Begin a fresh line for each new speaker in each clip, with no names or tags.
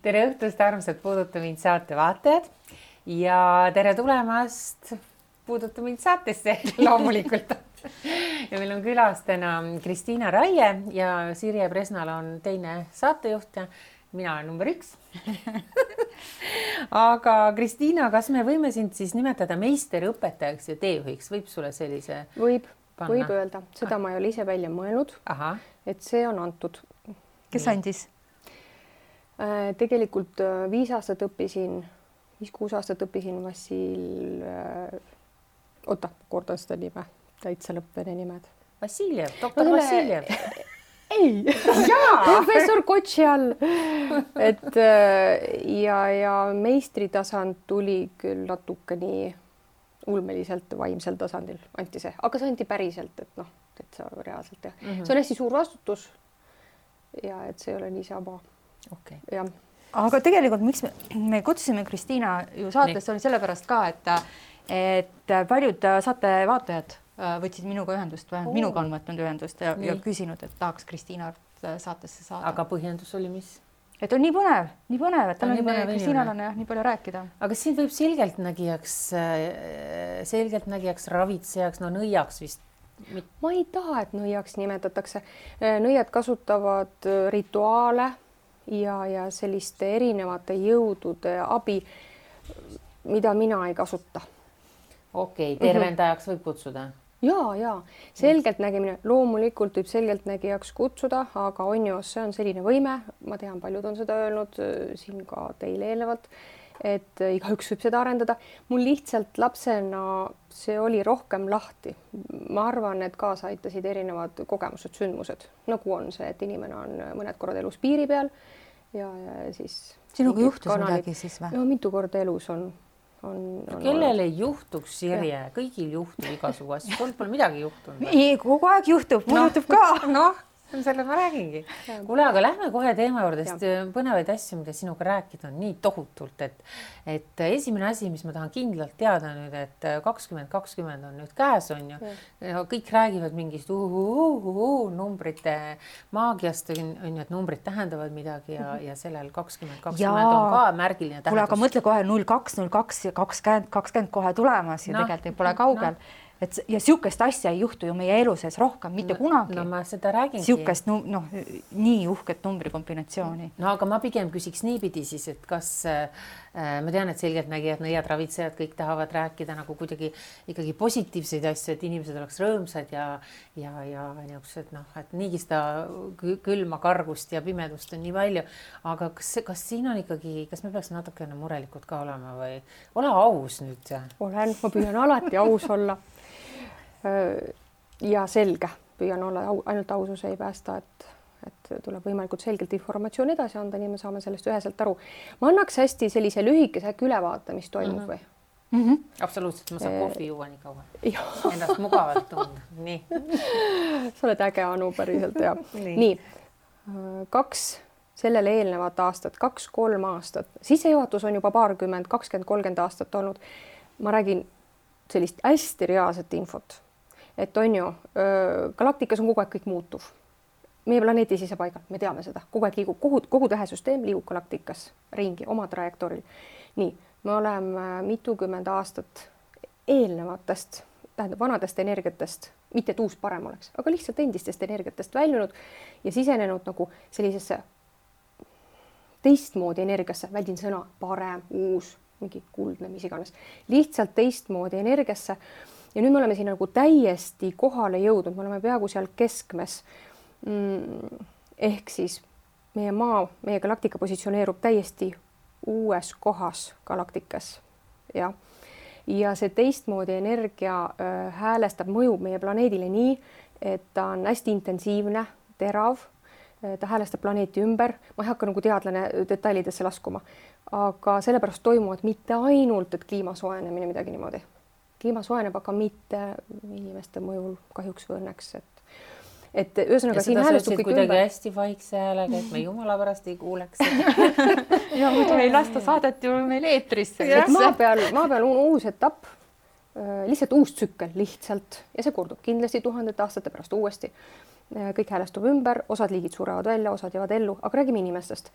tere õhtust, armsad Puuduta mind saate vaatajad ja tere tulemast Puuduta mind saatesse loomulikult. Ja meil on külas täna Kristiina Raie ja Sirje Presnal on teine saatejuht ja mina olen number 1. Aga Kristiina, kas me võime sind siis nimetada meisterõpetajaks ja teejuhiks? Võib sulle sellise
Võib öelda. Seda ma ei ole ise välja mõelnud, et see on antud.
Kes andis?
Tegelikult 5 aastat õppisin, 5-6 aastat õppisin Vassil, kordan seda nime, täitsa lõppvene nimed.
Vassiljev, doktor Vassiljev.
Ei, professor Kotši all. Et ja meistritasand tuli küll natuke nii ulmeliselt vaimsel tasandil, anti see, aga see anti päriselt, et see reaalselt jah. See on hästi suur vastutus ja et see ei ole niisama.
Okay.
Ja.
Aga tegelikult miks me kutsusime Kristiina ju saatesse oli sellepärast ka, et paljud saate vaatajad võtsid minuga ühendust või minuga on võtnud ühendust ja küsinud, et tahaks Kristiina saatesse saada.
Aga põhjendus oli mis?
Et on nii põnev, et Kristiinal on nii palju rääkida.
Aga siin võib selgeltnägijaks, ravitsejaks, nõiaks vist.
Ma ei taha, et nõiaks nimetatakse. Nõiad kasutavad rituaale ja selliste erinevate jõudude abi, mida mina ei kasuta.
Okei, tervendajaks võib kutsuda?
Ja. Selgeltnägimine loomulikult võib selgeltnägijaks kutsuda, aga on ju, see on selline võime. Ma tean, paljud on seda öelnud siin ka teile eelnevalt, et igaüks võib seda arendada. Mul lihtsalt lapsena see oli rohkem lahti. Ma arvan, et kaasa aitasid erinevad kogemused, sündmused, nagu on see, et inimene on mõned korrad elus piiri peal ja siis...
Sinuga juhtus midagi siis või?
No mitu korda elus on
kellel ei juhtuks, Sirje? Kõigil juhtub igasugu asju. Pole midagi juhtunud.
Ei, kogu aeg juhtub. Mul juhtub ka.
Selle ma räägingi. Kuule, aga lähme kohe teema juurde, sest põnevaid asju, mida sinuga rääkida on nii tohutult, et esimene asi, mis ma tahan kindlalt teada nüüd, et 2020 on nüüd käes on ju. Kõik räägivad mingist numbrite maagiast, on ju, et numbrid tähendavad midagi ja sellel 2020 on ka märgiline tähendus.
Kuule, aga mõtle kohe 02, 02 ja 20 kohe tulemas ja tegelikult ei pole kaugel. Ja siukest asja ei juhtu ju meie elu sees rohkem, mitte kunagi.
No ma seda räägingi.
Siukest, nii uhket numbrikombinatsiooni.
No aga ma pigem küsiks niipidi siis, et kas ma tean, et selgeltnägijad, nõiad, ravitsejad, kõik tahavad rääkida nagu kuidagi ikkagi positiivseid asju, et inimesed oleks rõõmsad ja niisugused, et niigi seda külma, kargust ja pimedust on nii palju. Aga kas siin on ikkagi, kas me peaks natukene murelikud ka olema või ole aus nüüd?
Olen, ma püüan alati aus olla. Ja selge, püüan olla, ainult ausus ei päästa, et tuleb võimalikult selgelt informatsioon edasi anda, nii me saame sellest üheselt aru. Ma annaks hästi sellise lühikese ülevaate, mis toimub või?
Absoluutselt, ma saan kohvi juua nii kaua. Ennast mugavalt tunda. Nii.
Sa oled äge, Anu, päriselt, ja. Nii. 2 sellele eelnevat aastat, 2-3 aastat. Sissejuhatus on juba 20-30 aastat olnud. Ma räägin sellist hästi reaalset infot. Et on ju, galaktikas on kogu aeg kõik muutuv. Meie planeedi sisepaigal, me teame seda. Kogu aeg liigub, kogu tähesüsteem liigub galaktikas ringi oma trajektooril. Nii, me oleme mitukümmend aastat eelnevatest, tähendab vanadest energiatest, mitte et uus parem oleks, aga lihtsalt endistest energiatest väljunud ja sisenenud nagu sellisesse teistmoodi energiasse, väldin sõna parem, uus, mingi kuldne, mis iganes, lihtsalt teistmoodi energiasse. Ja nüüd me oleme siin nagu täiesti kohale jõudnud, me oleme peaaegu seal keskmes. Ehk siis meie maa, meie galaktika positsioneerub täiesti uues kohas galaktikas. Ja see teistmoodi energia häälestab, mõjub meie planeedile nii, et ta on hästi intensiivne, terav, ta häälestab planeeti ümber. Ma ei hakka nagu teadlane detailidesse laskuma, aga sellepärast toimuvad mitte ainult, et kliima soojenemine midagi niimoodi. Kliima soojeneb, aga mitte inimeste mõjul kahjuks või õnneks. Et ühesõnaga siin häälestub kõik ümber.
Kuidagi hästi vaikse häälega, et me jumala pärast ei kuuleks.
Ja muidu ei lasta saadet ju meil eetrisse.
Maa peal on uus etapp, lihtsalt uus tsükkel lihtsalt ja see kordub kindlasti 1000 aastate pärast uuesti. Kõik häälestub ümber, osad liigid surevad välja, osad jäävad ellu, aga räägime inimestest.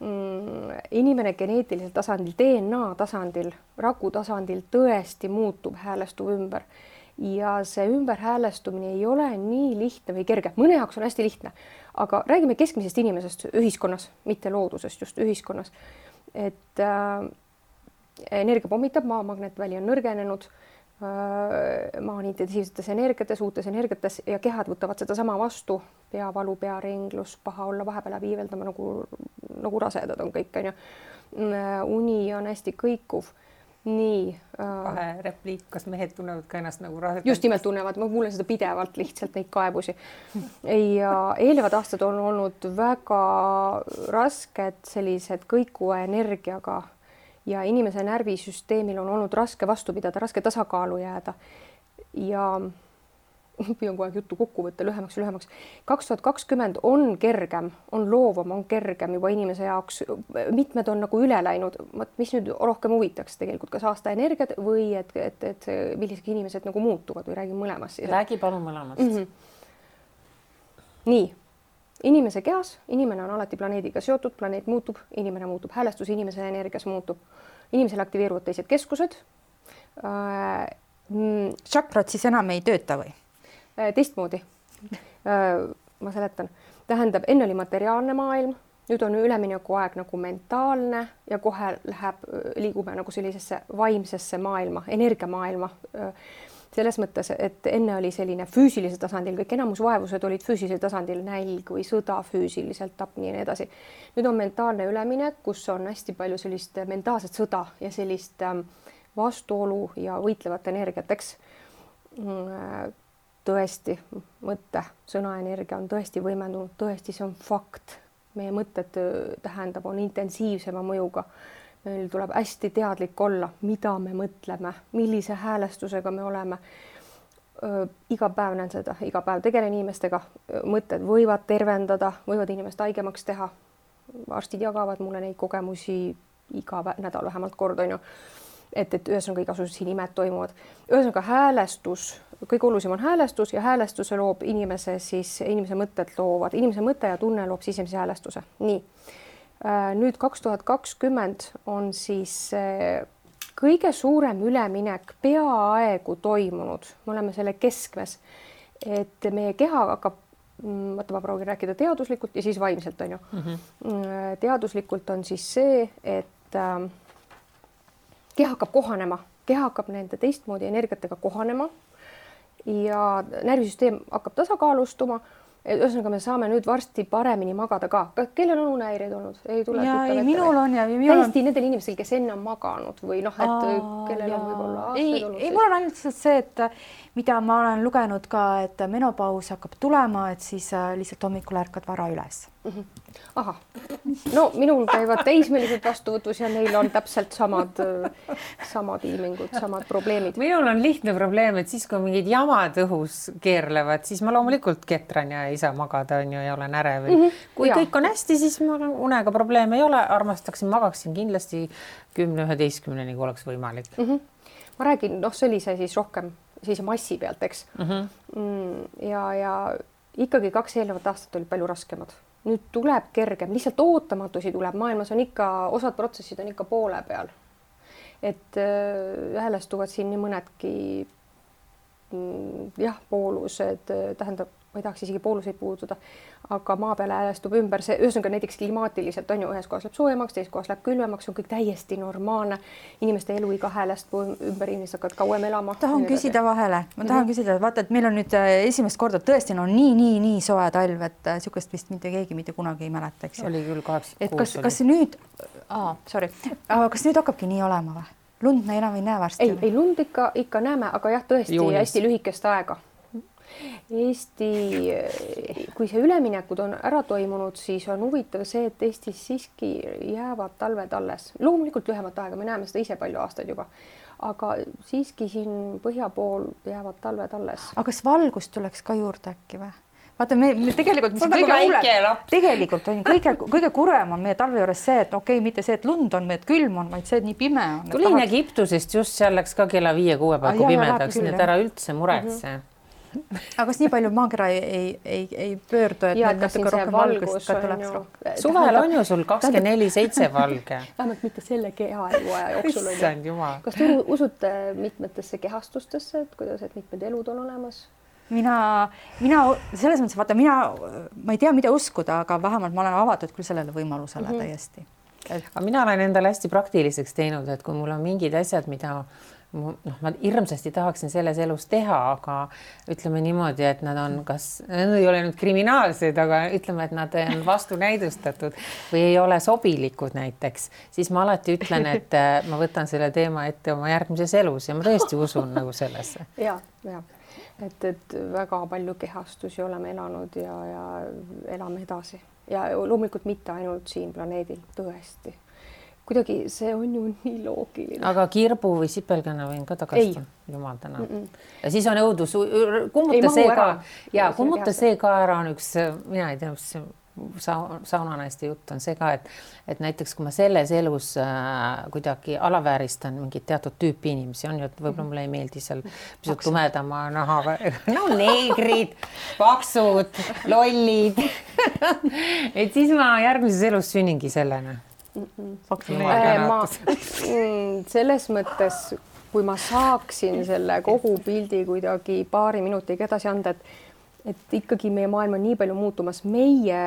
inimene geneetilisel tasandil, DNA tasandil, raku tasandil tõesti muutub, häälestub ümber ja see ümberhäälestumine ei ole nii lihtne või kerge, mõne jaoks on hästi lihtne, aga räägime keskmisest inimesest ühiskonnas, mitte loodusest, just ühiskonnas, et energia pommitab, maa magnetväli on nõrgenenud, maa on intensiivsetes energiates, uutes energiates ja kehad võtavad seda sama vastu, peavalu, pearinglus, paha olla, vahepeal läheb iiveldama nagu rasedad on kõik, on ju. Uni on hästi kõikuv. Nii.
Vahe repliik, kas mehed tunnevad ka ennast nagu rasedad?
Just nimelt tunnevad, ma kuulen seda pidevalt lihtsalt neid kaebusi. Ja eelnevad aastad on olnud väga rasked sellised kõikuva energiaga ja inimese närvisüsteemil on olnud raske vastu pidada, raske tasakaalu jääda ja püüan kogu aeg juttu kokku võtta lühemaks. 2020 on kergem, on loovam, on kergem juba inimese jaoks. Mitmed on nagu üle läinud, mis nüüd rohkem huvitaks tegelikult, kas aasta energiat või et millised inimesed nagu muutuvad või räägin mõlemast.
Räägi palun mõlemast.
Nii. Inimese kehas, inimene on alati planeediga seotud, planeet muutub, inimene muutub, häälestus inimese energias muutub. Inimesel aktiveeruvad teised keskused.
Čakrad siis enam ei tööta või?
Teistmoodi. Ma seletan. Tähendab, enne oli materiaalne maailm, nüüd on ülemineku aeg nagu mentaalne ja kohe liigume nagu sellisesse vaimsesse maailma, energiamaailma. Selles mõttes, et enne oli selline füüsilisel tasandil, kõik enamus vaevused olid füüsilisel tasandil, nälg või sõda füüsiliselt, tapni ja nii edasi. Nüüd on mentaalne üleminek, kus on hästi palju sellist mentaalset sõda ja sellist vastuolu ja võitlevat energiat, eks. Tõesti, mõtte, sõnaenergia on tõesti võimendunud, tõesti see on fakt. Meie mõtted tähendab, on intensiivsema mõjuga. Meil tuleb hästi teadlik olla, mida me mõtleme, millise häälestusega me oleme. Iga päev näen seda, iga päev tegelen inimestega, mõtted võivad tervendada, võivad inimest haigemaks teha. Arstid jagavad mulle neid kogemusi iga nädal vähemalt kord, on ju. Et ühesõnaga igasugused siin imed toimuvad. Ühesõnaga häälestus, kõige olulisem on häälestus ja häälestuse loob inimese mõtted loovad. Inimese mõte ja tunne loob sisemise häälestuse. Nii. Nüüd 2020 on siis kõige suurem üleminek peaaegu toimunud. Me oleme selle keskmes, et meie keha hakkab, ma proovin rääkida teaduslikult ja siis vaimselt on ju. Teaduslikult on siis see, et keha hakkab kohanema, keha hakkab nende teistmoodi energiatega kohanema ja närvisüsteem hakkab tasakaalustuma. Ühesõnaga me saame nüüd varsti paremini magada ka. Kellel on unehäireid olnud? Ei tule
minul on ja
täiesti nendel inimestel, kes enne on maganud või noh, et kellel on võib-olla aastaid olnud.
Ei, mul on ainult see, et mida ma olen lugenud ka, et menopaus hakkab tulema, et siis lihtsalt hommikul ärkad vara üles.
Aha, no minul käivad teismelised vastuvõtus ja neil on täpselt samad ilmingud, samad probleemid.
Minul on lihtne probleem, et siis kui mingid jamad õhus keerlevad, siis ma loomulikult ketran ja ei saa magada on ju, ja olen ärev. Kui kõik on hästi, siis ma unega probleeme ei ole, armastaksin, magaksin kindlasti 10-11, kui oleks võimalik.
Ma räägin, see oli see siis rohkem sellise massi pealt, eks. Ja ikkagi 2 eelnevat aastat oli palju raskemad. Nüüd tuleb kergem, lihtsalt ootamatusi tuleb. Maailmas on ikka, osad protsessid on ikka poole peal. Et häälestuvad siin nii mõnedki poolused, tähendab, ma ei tahaks isegi pooluseid puudutada, aga maa peale häälestub ümber see, ühesõnaga näiteks klimaatiliselt on ju, ühes kohas läheb soojemaks, teises kohas läheb külmemaks, on kõik täiesti normaalne. Inimeste eluiga häälestub ümber, inimesed hakkavad kauem elama.
Tahan küsida vahele, ma tahan küsida, vaata, et meil on nüüd esimest korda tõesti nii soe talv, et sihukest vist keegi mitte kunagi ei mäleta, eks.
Oli küll 86.
Kas nüüd, kas nüüd hakkabki nii olema või? Lund me enam ei näe varsti?
Ei, lund ikka näeme, aga jah, tõesti hästi lühikest aega. Eesti, kui see üleminekud on ära toimunud, siis on huvitav see, et Eestis siiski jäävad talved alles. Loomulikult lühemat aega, me näeme seda ise palju aastaid juba, aga siiski siin põhja pool jäävad talved alles.
Aga kas valgust tuleks ka juurde äkki või? Vaata, me tegelikult, tegelikult on kõige kurem on meie talve juures see, et mitte see, et lund on, et külm on, vaid see, et nii pime on.
Tulin Egiptusest just seal läks ka kella 5-6 paiku pimedaks, nii et ära üldse muretse.
aga kas nii palju maakera ei pöördu, et
ja,
need natuke rohkem valgust ka tuleks rohkem?
Suvel on ju sul 24/7 valge.
Vähemalt mitte selle kehaeluaja jooksul.
Issand jumal.
Kas te usute mitmetesse kehastustesse, et kuidas, et mitmed elud on olemas?
Mina selles mõttes, vaata, ma ei tea, mida uskuda, aga vähemalt ma olen avatud küll sellele võimalusele täiesti.
Aga mina olen endale hästi praktiliseks teinud, et kui mul on mingid asjad, mida ma hirmsasti tahaksin selles elus teha, aga ütleme niimoodi, et nad on need ei ole nüüd kriminaalsed, aga ütleme, et nad on vastunäidustatud või ei ole sobilikud näiteks, siis ma alati ütlen, et ma võtan selle teema ette oma järgmises elus ja ma tõesti usun nagu sellesse.
Ja. Et väga palju kehastusi oleme elanud ja elame edasi ja loomulikult mitte ainult siin planeedil, tõesti. Kuidagi see on ju nii loogiline.
Aga kirbu või sipelgana võin ka tagasi. Jumal täna. Ja siis on õudus, kummuta see ka ära on üks, mina ei tea, saunanaiste jutt on see ka, et näiteks kui ma selles elus kuidagi alavääristan mingit teatud tüüpi inimesi, on ju, et võib-olla mulle ei meeldi seal pisut tumedama nahaga, no neegrid, paksud, lollid. Et siis ma järgmises elus sünningi sellena.
Selles mõttes, kui ma saaksin selle kogu pildi kuidagi paari minutiga edasi anda, et ikkagi meie maailm on nii palju muutumas, meie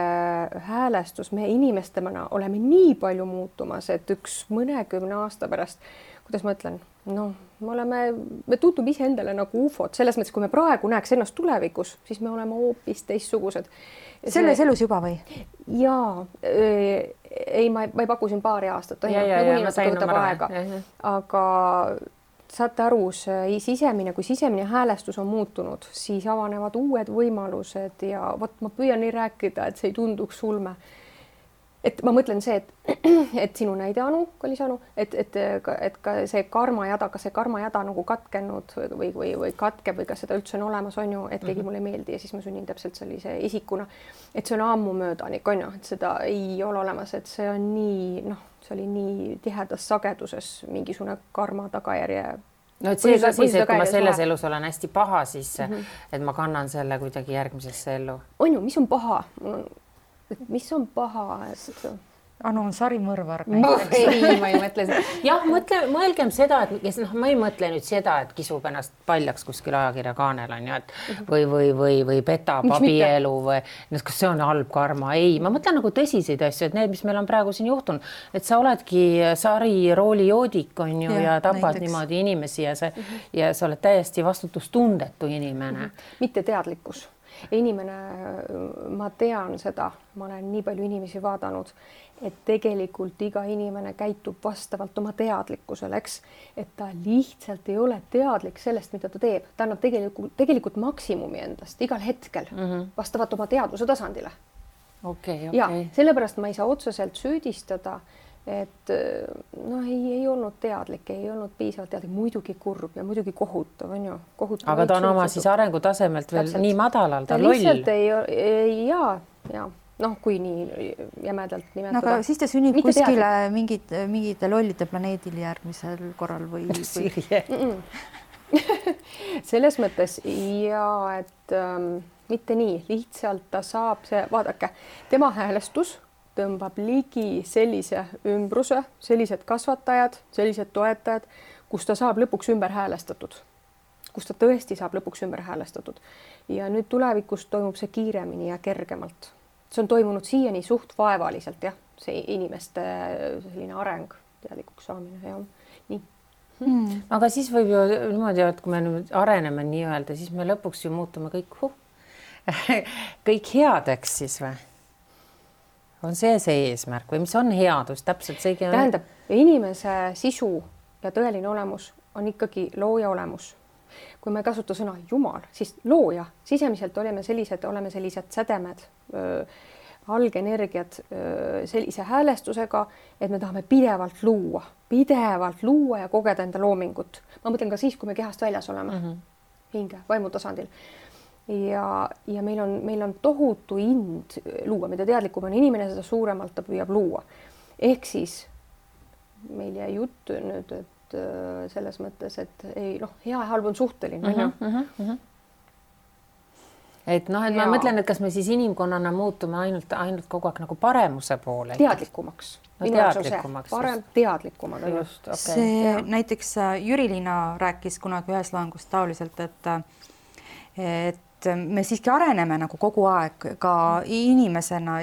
häälestus, meie inimestemana oleme nii palju muutumas, et üks mõnekümne aasta pärast, kuidas ma ütlen, me tundume ise endale nagu ufod, selles mõttes, kui me praegu näeks ennast tulevikus, siis me oleme hoopis teistsugused.
Selles elus juba või?
Jaa, ma ei paku siin paari aastat, aga saate aru, kui sisemine häälestus on muutunud, siis avanevad uued võimalused ja ma püüan nii rääkida, et see ei tunduks ulme. Et ma mõtlen see, et sinu näide Anu, kallis Anu, et ka see karmajada, kas see karmajada nagu katkenud või katkeb või kas seda üldse on olemas, on ju, et keegi mulle ei meeldi ja siis ma sünnin täpselt sellise isikuna, et see on ammu möödanik, on ju, et seda ei ole olemas, et see on nii, see oli nii tihedas sageduses mingisugune karma tagajärje.
No et see ka siis, et kui ma selles elus olen hästi paha, siis et ma kannan selle kuidagi järgmisesse ellu.
On ju, mis on paha? Mis on paha?
Anu on sarimõrvar.
Ei, ma ei mõtle seda. Jah, mõelgem seda, et ma ei mõtle nüüd seda, et kisub ennast paljaks kuskil ajakirja kaanel on ju, et või petab abielu või kas see on halb karma. Ei, ma mõtlen nagu tõsiseid asju, et need, mis meil on praegu siin juhtunud, et sa oledki sarirooli joodik on ju ja tapad niimoodi inimesi ja sa oled täiesti vastutustundetu inimene.
Mitte teadlikkus. Inimene, ma tean seda, ma olen nii palju inimesi vaadanud, et tegelikult iga inimene käitub vastavalt oma teadlikkusele, eks, et ta lihtsalt ei ole teadlik sellest, mida ta teeb. Ta annab tegelikult maksimumi endast igal hetkel vastavalt oma teadvuse tasandile. Ja sellepärast ma ei saa otseselt süüdistada, et ei olnud teadlik, ei olnud piisavalt teadlik, muidugi kurb ja muidugi kohutav, on ju.
Aga ta on oma siis arengutasemelt veel täpselt. Nii madalal, ta loll.
Lihtsalt ja kui nii jämedalt nimetada.
Aga siis ta sünnib kuskile mingite lollide planeedil järgmisel korral või?
Selles mõttes et mitte nii, lihtsalt ta saab vaadake, tema häälestus tõmbab ligi sellise ümbruse, sellised kasvatajad, sellised toetajad, kus ta saab lõpuks ümber häälestatud. Kus ta tõesti saab lõpuks ümber häälestatud. Ja nüüd tulevikus toimub see kiiremini ja kergemalt. See on toimunud siiani suht vaevaliselt, jah, see inimeste selline areng, teadlikuks saamine ja nii.
Aga siis võib ju niimoodi, et kui me nüüd areneme nii-öelda, siis me lõpuks ju muutume kõik headeks siis või? On see eesmärk või mis on headus täpselt seegi?
Tähendab, inimese sisu ja tõeline olemus on ikkagi looja olemus. Kui me ei kasuta sõna Jumal, siis looja, sisemiselt oleme sellised sädemed, algenergiad sellise häälestusega, et me tahame pidevalt luua ja kogeda enda loomingut. Ma mõtlen ka siis, kui me kehast väljas oleme, hinge, vaimu tasandil. Ja meil on tohutu ind luua, mida teadlikum on inimene, seda suuremalt ta püüab luua. Ehk siis meil jäi jutt nüüd, et selles mõttes, et hea ja halb on suhteline.
et noh, et ma mõtlen, et kas me siis inimkonnana muutume ainult kogu aeg nagu paremuse poole.
Teadlikumaks.
No, teadlikumaks.
Parem teadlikumad.
Just, okay. See näiteks Jüri-Liina rääkis kunagi ühes loengus taoliselt, et me siiski areneme nagu kogu aeg ka inimesena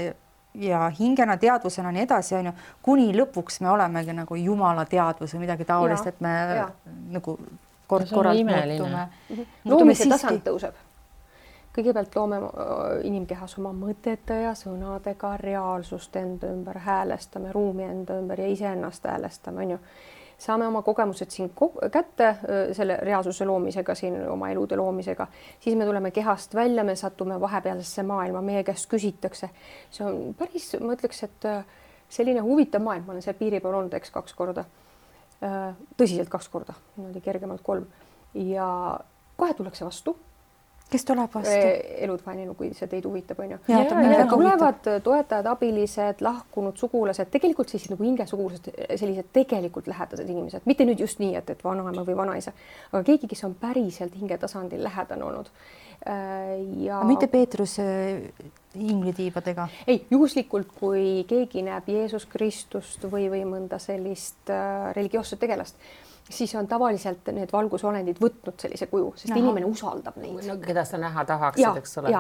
ja hingena, teadvusena nii edasi, on ju, kuni lõpuks me olemegi nagu jumala teadvus või midagi taolist, et me nagu kord-korralt muutume.
Loomise tasand tõuseb. Kõigepealt loome inimkehas oma mõtete ja sõnadega reaalsust enda ümber, häälestame ruumi enda ümber ja iseennast häälestame, on ju. Saame oma kogemused siin kätte selle reaalsuse loomisega, siin oma elude loomisega, siis me tuleme kehast välja, me satume vahepealsesse maailma, meie käest küsitakse. See on päris, ma ütleks, et selline huvitav maailm, ma olen seal piiri peal olnud, eks 2 korda, tõsiselt 2 korda, niimoodi kergemalt 3 ja kohe tullakse vastu.
Kes tuleb vastu?
Elud vaeninu, kui see teid huvitab, on ju. Tulevad toetajad, abilised, lahkunud sugulased, tegelikult sellised nagu hingesugulased, sellised tegelikult lähedased inimesed, mitte nüüd just nii, et vanaema või vanaisa, aga keegi, kes on päriselt hingetasandil lähedane olnud. Ja...
Mitte Peetrus inglitiibadega?
Ei, juhuslikult, kui keegi näeb Jeesus Kristust või mõnda sellist religioosset tegelast, siis on tavaliselt need valgusolendid võtnud sellise kuju, sest inimene usaldab neid.
No, keda sa näha tahaksid, eks ole.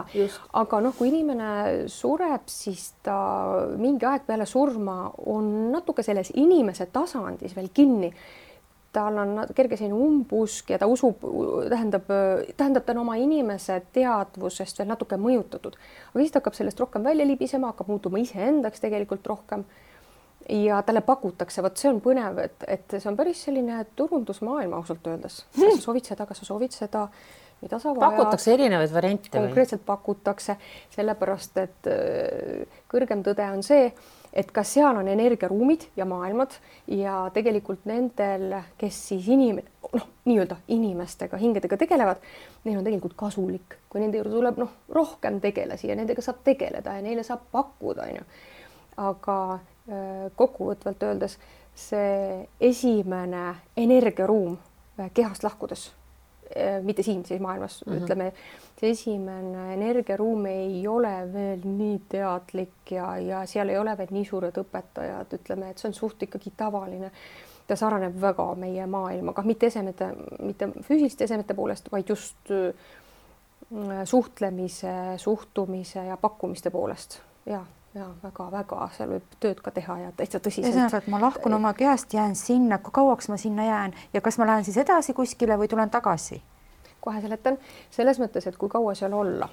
Aga noh, kui inimene sureb, siis ta mingi aeg peale surma on natuke selles inimese tasandis veel kinni. Tal on kerge selline umbusk ja ta usub, tähendab ta oma inimese teadvusest veel natuke mõjutatud. Aga siis ta hakkab sellest rohkem välja libisema, hakkab muutuma iseendaks tegelikult rohkem. Ja talle pakutakse, see on põnev, et see on päris selline turundusmaailma ausalt öeldes. Kas sa soovid seda, mida sa vajad.
Pakutakse erinevaid variante.
Konkreetselt pakutakse, sellepärast, et kõrgem tõde on see, et kas seal on energiaruumid ja maailmad ja tegelikult nendel, kes siis nii-öelda inimestega, hingedega tegelevad, neil on tegelikult kasulik, kui nende juurde tuleb rohkem tegelasi ja nendega saab tegeleda ja neile saab pakkuda, on ju. Aga kokkuvõtvalt öeldes see esimene energiaruum kehast lahkudes, mitte siin siis maailmas, ütleme, see esimene energiaruum ei ole veel nii teadlik ja seal ei ole veel nii suured õpetajad, ütleme, et see on suht ikkagi tavaline. Ta saraneb väga meie maailmaga, mitte füüsiliste esemete poolest, vaid just suhtlemise, suhtumise ja pakkumiste poolest. Ja väga-väga, seal võib tööd ka teha ja täitsa tõsiselt.
Et ma lahkun oma kehast, jään sinna, kui kauaks ma sinna jään ja kas ma lähen siis edasi kuskile või tulen tagasi?
Kohe seletan, selles mõttes, et kui kaua seal olla.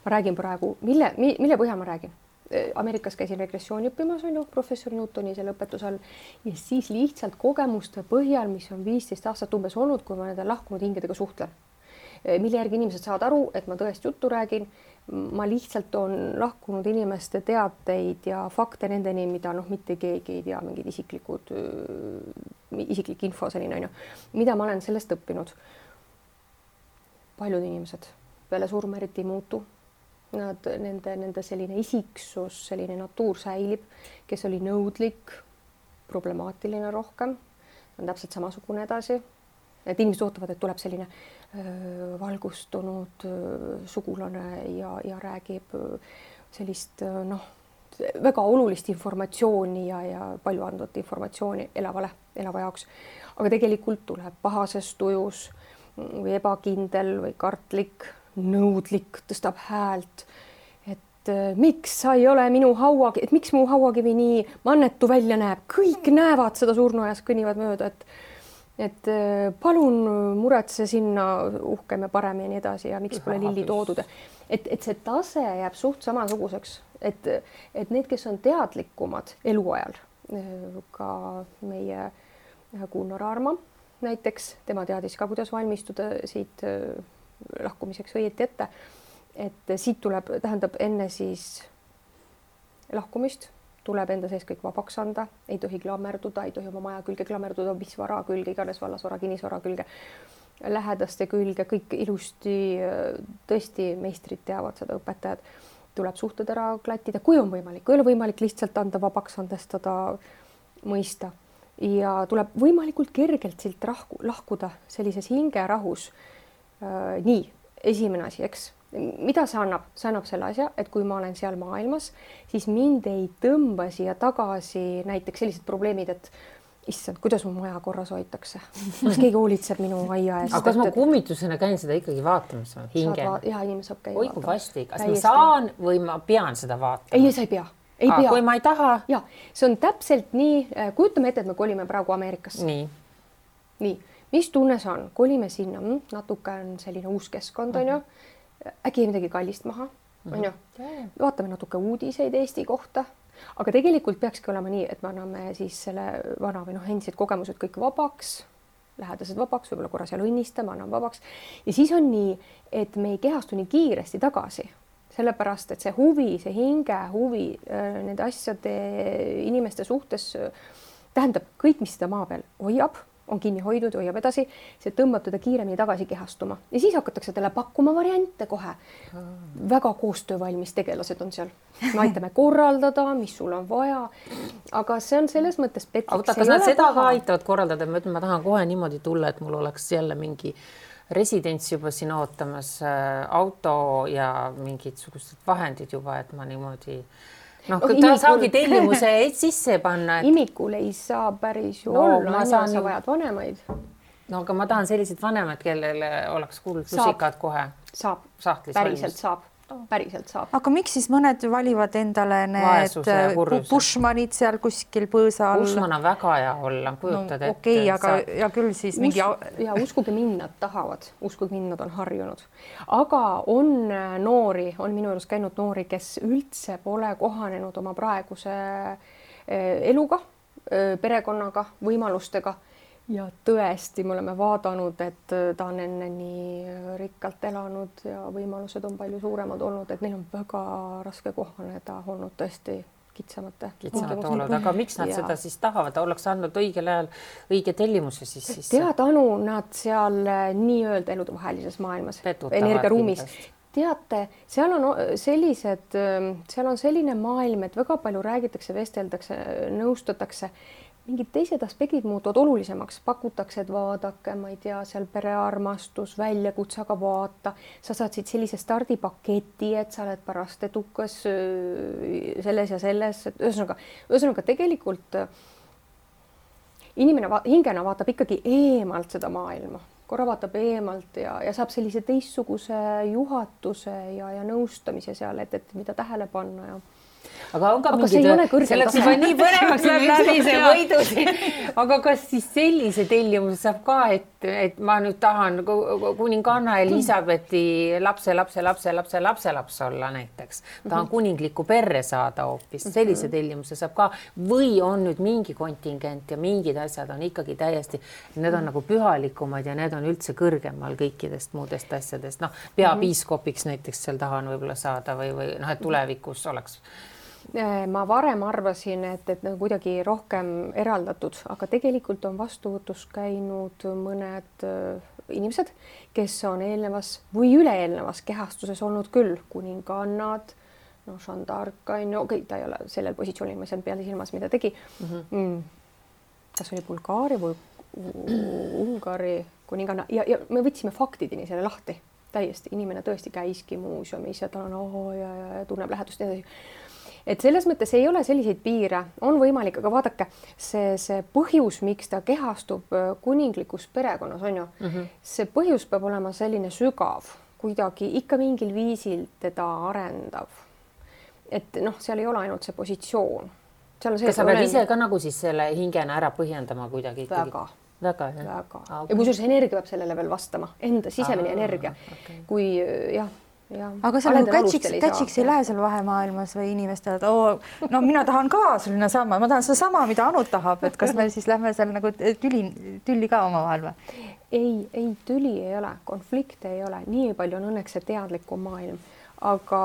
Ma räägin praegu, mille põhjal ma räägin? Ameerikas käisin regressiooni õppimas, on ju, professor Newtoni selle õpetusel ja siis lihtsalt kogemuste põhjal, mis on 15 aastat umbes olnud, kui ma nende lahkunud hingedega suhtlen. Mille järgi inimesed saavad aru, et ma tõesti juttu räägin, ma lihtsalt on lahkunud inimeste teateid ja fakte nendeni, mida mitte keegi ei tea, mingid isiklik info selline, on ju, mida ma olen sellest õppinud. Paljud inimesed peale surma eriti ei muutu. Nende selline isiksus, selline natuur säilib, kes oli nõudlik, problemaatiline rohkem, on täpselt samasugune edasi. Et inimesed ootavad, et tuleb selline valgustunud sugulane ja räägib sellist väga olulist informatsiooni ja palju andvat informatsiooni elava jaoks. Aga tegelikult tuleb pahases tujus või ebakindel või kartlik, nõudlik, tõstab häält, et miks sa ei ole minu hauakivi, et miks mu hauakivi nii mannetu välja näeb, kõik näevad seda surnuajas, kõnnivad mööda, et palun muretse sinna uhkem ja parem ja nii edasi ja miks pole lilli toodud. Et see tase jääb suht samasuguseks, et need, kes on teadlikumad eluajal, ka meie Gunnar Arma näiteks, tema teadis ka, kuidas valmistuda siit lahkumiseks õieti ette, et siit tuleb, tähendab enne siis lahkumist, tuleb enda sees kõik vabaks anda, ei tohi klammerduda, ei tohi oma maja külge klammerduda, mis vara külge, iganes vallasvara, kinnisvara külge, lähedaste külge, kõik ilusti, tõesti meistrid teavad seda, õpetajad, tuleb suhted ära klattida, kui on võimalik, kui ei ole võimalik lihtsalt anda vabaks, andestada, mõista ja tuleb võimalikult kergelt silt lahkuda sellises hingerahus. Nii, esimene asi, eks, mida see annab? See annab selle asja, et kui ma olen seal maailmas, siis mind ei tõmba siia tagasi näiteks sellised probleemid, et issand, kuidas mu maja korras hoitakse. Kas keegi hoolitseb minu aia eest?
Aga kas ma kummitusena käin seda ikkagi vaatamas? Hinge?
Jaa, inimene saab käia
vaatama. Oi, kui vasti. Kas ma saan või ma pean seda vaatama?
Ei, sa ei pea. Ei pea.
Kui ma ei taha?
Ja, see on täpselt nii. Kujutame ette, et me kolime praegu Ameerikasse. Nii. Mis tunne see on? Kolime sinna. Natuke on selline uus keskkond, on ju. Äkki midagi kallist maha, on ju. Vaatame natuke uudiseid Eesti kohta. Aga tegelikult peakski olema nii, et me anname siis selle vana või endised kogemused kõik vabaks, lähedased vabaks, võib-olla korra seal õnnistame, anname vabaks. Ja siis on nii, et me ei kehastu nii kiiresti tagasi. Sellepärast, et see huvi, see hinge huvi nende asjade inimeste suhtes tähendab kõik, mis seda maa peal hoiab, on kinni hoidnud, hoiab edasi, see tõmbab teda kiiremini tagasi kehastuma. Ja siis hakatakse talle pakkuma variante kohe. Väga koostöövalmis tegelased on seal. Me aitame korraldada, mis sul on vaja. Aga see on selles mõttes petlik.
Aga kas nad seda ka aitavad korraldada? Ma tahan kohe niimoodi tulla, et mul oleks jälle mingi residents juba siin ootamas, auto ja mingid sugused vahendid juba, et ma niimoodi... ta saagi tellimuse sisse panna.
Imikul ei saa päris ju olla, sa vajad vanemaid.
Aga ma tahan sellised vanemad, kellele oleks kuulnud lusikad kohe.
Saab, päriselt saab. Päriselt saab.
Aga miks siis mõned valivad endale need Bushmanid seal kuskil põõsa all?
Bushman on väga hea olla, kujutad ette.
Okei, aga ja küll siis mingi...
Ja uskuge mind, nad tahavad. Uskuge mind, nad on harjunud. Aga on noori, on minu juures käinud noori, kes üldse pole kohanenud oma praeguse eluga, perekonnaga, võimalustega. Ja tõesti, me oleme vaadanud, et ta on enne nii rikkalt elanud ja võimalused on palju suuremad olnud, et neil on väga raske kohaneda olnud tõesti kitsamate
olud. Aga miks nad seda siis tahavad? Oleks andnud õigel ajal õige tellimuse siis?
Teadanu nad seal nii-öelda eludevahelises maailmas, energiaruumis. Teate, seal on selline maailm, et väga palju räägitakse, vesteldakse, nõustatakse. Mingid teised aspektid muutuvad olulisemaks, pakutakse, et vaadake, ma ei tea, seal perearmastus, väljakutse, aga vaata, sa saad siit sellise stardipaketi, et sa oled pärast edukas selles ja selles, et ühesõnaga tegelikult inimene hingena vaatab ikkagi eemalt seda maailma, korra vaatab eemalt ja saab sellise teistsuguse juhatuse ja nõustamise seal, et mida tähele panna ja
aga on ka mingid, see läks juba nii põnevaks läbi see võidu siin. Aga kas siis sellise tellimuse saab ka, et ma nüüd tahan kuninganna Elisabethi lapse olla näiteks. Tahan kuninglikku perre saada hoopis. Sellise tellimuse saab ka. Või on nüüd mingi kontingent ja mingid asjad on ikkagi täiesti, need on nagu pühalikumad ja need on üldse kõrgemal kõikidest muudest asjadest. Peapiiskopiks näiteks seal tahan võib-olla saada või et tulevikus oleks...
Ma varem arvasin, et kuidagi rohkem eraldatud, aga tegelikult on vastuvõtus käinud mõned inimesed, kes on eelnevas või üleelnevas kehastuses olnud küll, kuningannad, Jeanne d'Arc, ta ei ole sellel positsioonil, ma ei saanud peale silmas, mida tegi. Kas oli Bulgaaria või Ungari kuninganna ja me võtsime faktideni selle lahti täiesti. Inimene tõesti käiski muuseumis ja ta on ja tunneb lähedust edasi. Et selles mõttes ei ole selliseid piire, on võimalik, aga vaadake, see põhjus, miks ta kehastub kuninglikus perekonnas on ju, see põhjus peab olema selline sügav, kuidagi ikka mingil viisil teda arendav. Et seal ei ole ainult see positsioon.
Kas sa pead ise ka nagu siis selle hingena ära põhjendama kuidagi? Väga.
Ja kui sul see energia peab sellele veel vastama, enda sisemine energia, kui jah,
aga seal kätsiks ei lähe seal vahemaailmas või inimestel, et mina tahan ka selline sama, ma tahan seda sama, mida Anu tahab, et kas me siis lähme seal nagu tülli ka omavahel või?
Ei, tüli ei ole, konflikte ei ole, nii palju on õnneks see teadlikum maailm, aga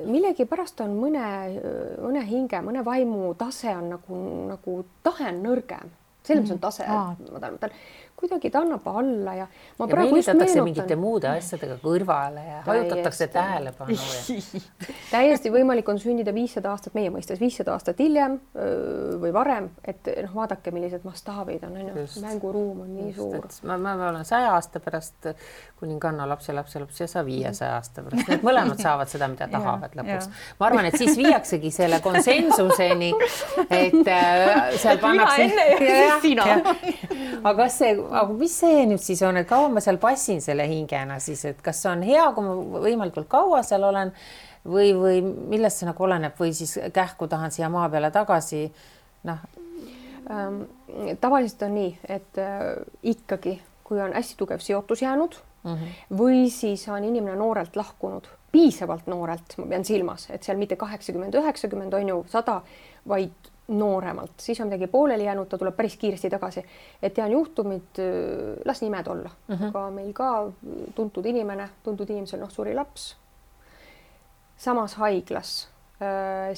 millegi pärast on mõne hinge, mõne vaimu tase on nagu tahe on nõrgem. selles on tase, ma kuidagi ta annab alla ja ma
ja meelitatakse mingite muude asjadega kõrvale ja hajutatakse tähelepanu.
Täiesti võimalik on sündida 500 aastat meie mõistes, 500 aastat hiljem või varem, et vaadake, millised mastaabid on, mänguruum on nii suur.
Ma olen 100 aasta pärast kuninganna lapse ja 500 aasta pärast. Need mõlemad saavad seda, mida tahavad lõpuks. Ma arvan, et siis viiaksegi selle konsensuseni, et seal pannakse...
Mina enne ja siis sina.
Aga mis see nüüd siis on, et kaua ma seal passin selle hingena siis, et kas on hea, kui ma võimalikult kaua seal olen või millest see nagu oleneb või siis kähku tahan siia maa peale tagasi?
Tavaliselt on nii, et ikkagi, kui on hästi tugev seotus jäänud või siis on inimene noorelt lahkunud, piisavalt noorelt, ma pean silmas, et seal mitte 80, 90 on ju 100, vaid nooremalt, siis on midagi pooleli jäänud, ta tuleb päris kiiresti tagasi. Et tean juhtumid, las nimed olla, aga meil ka tuntud inimesel suri laps. Samas haiglas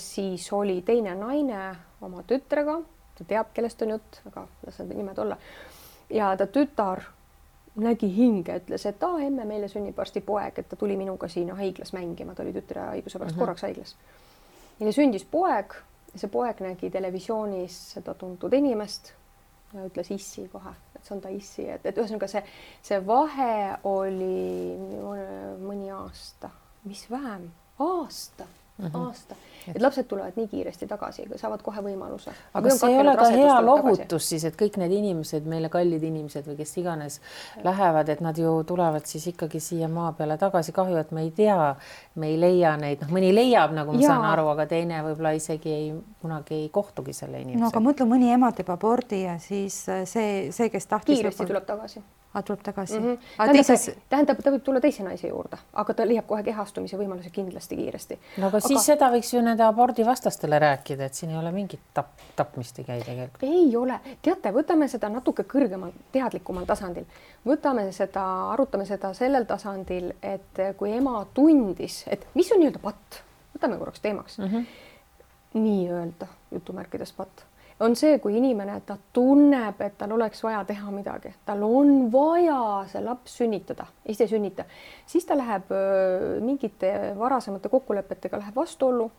siis oli teine naine oma tütrega, ta teab, kellest on jutt, aga las need nimed olla. Ja ta tütar nägi hinge, ütles, et emme, meile sünnib varsti poeg, et ta tuli minuga siin haiglas mängima, ta oli tütre haiguse pärast korraks haiglas. Neile sündis poeg. See poeg nägi televisioonis seda tuntud inimest ja ütles issi kohe, et see on ta issi, et ühesõnaga see vahe oli mõni aasta, mis vähem, aasta, et lapsed tulevad nii kiiresti tagasi, saavad kohe võimaluse.
Aga see ei ole ka hea lohutus siis, et kõik need inimesed, meile kallid inimesed või kes iganes lähevad, et nad ju tulevad siis ikkagi siia maa peale tagasi. Kahju, et me ei tea, me ei leia neid, mõni leiab, nagu ma saan aru, aga teine võib-olla isegi kunagi ei kohtugi selle inimesega.
No aga mõtle, mõni ema teeb abordi ja siis see kes tahtis...
Kiiresti tuleb tagasi.
Tuleb tagasi.
Tähendab, ta võib tulla teise naise juurde, aga ta leiab kohe kehastumise võimaluse kindlasti kiiresti.
No aga siis seda võiks ju nende abordi vastastele rääkida, et siin ei ole mingit tapmist ei käi tegelikult.
Ei ole. Teate, võtame seda natuke kõrgemal, teadlikumal tasandil. Arutame seda sellel tasandil, et kui ema tundis, et mis on nii-öelda patt, võtame korraks teemaks, nii-öelda jutumärkides patt. On see, kui inimene, ta tunneb, et tal oleks vaja teha midagi, tal on vaja see laps sünnitada, ise sünnita, siis ta läheb mingite varasemate kokkulepetega läheb vastuollu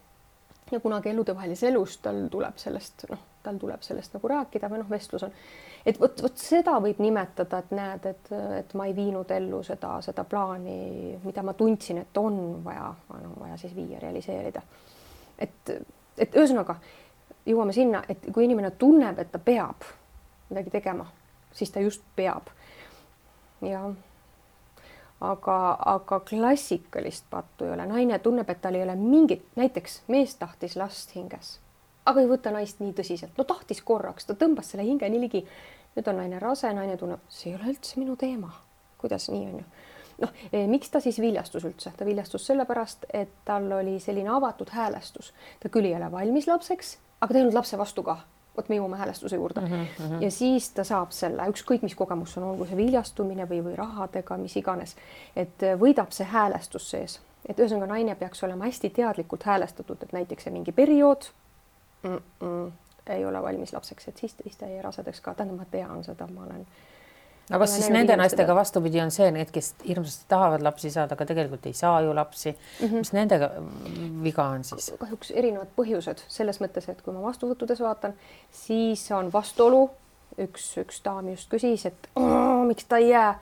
ja kunagi eludevahelises elus tal tuleb sellest nagu rääkida või vestlus on. Et võt seda võib nimetada, et näed, et ma ei viinud ellu seda plaani, mida ma tundsin, et on vaja siis viia, realiseerida. Et ühesõnaga, jõuame sinna, et kui inimene tunneb, et ta peab midagi tegema, siis ta just peab. Ja, aga klassikalist pattu ei ole. Naine tunneb, et tal ei ole mingit, näiteks mees tahtis last hinges, aga ei võta naist nii tõsiselt. No tahtis korraks, ta tõmbas selle hinge nii ligi. Nüüd on naine rase, naine tunneb, see ei ole üldse minu teema. Kuidas nii on ju? Miks ta siis viljastus üldse? Ta viljastus sellepärast, et tal oli selline avatud häälestus. Ta küll ei ole valmis lapseks, aga ta ei olnud lapse vastu ka. Võt me jõuame häälestuse juurde. Ja siis ta saab selle, ükskõik mis kogemus on, olgu see viljastumine või rahadega, mis iganes, et võidab see häälestus sees. Et ühesõnaga naine peaks olema hästi teadlikult häälestatud, et näiteks see mingi periood ei ole valmis lapseks, et siis ta ei rasedaks ka. Tähendab, ma tean seda, ma olen...
Aga siis nende naistega vastupidi on see, need, kes hirmsasti tahavad lapsi saada, aga tegelikult ei saa ju lapsi. Mis nendega viga on siis?
Kahjuks erinevad põhjused selles mõttes, et kui ma vastuvõttudes vaatan, siis on vastuolu. Üks daam just küsis, et miks ta ei jää.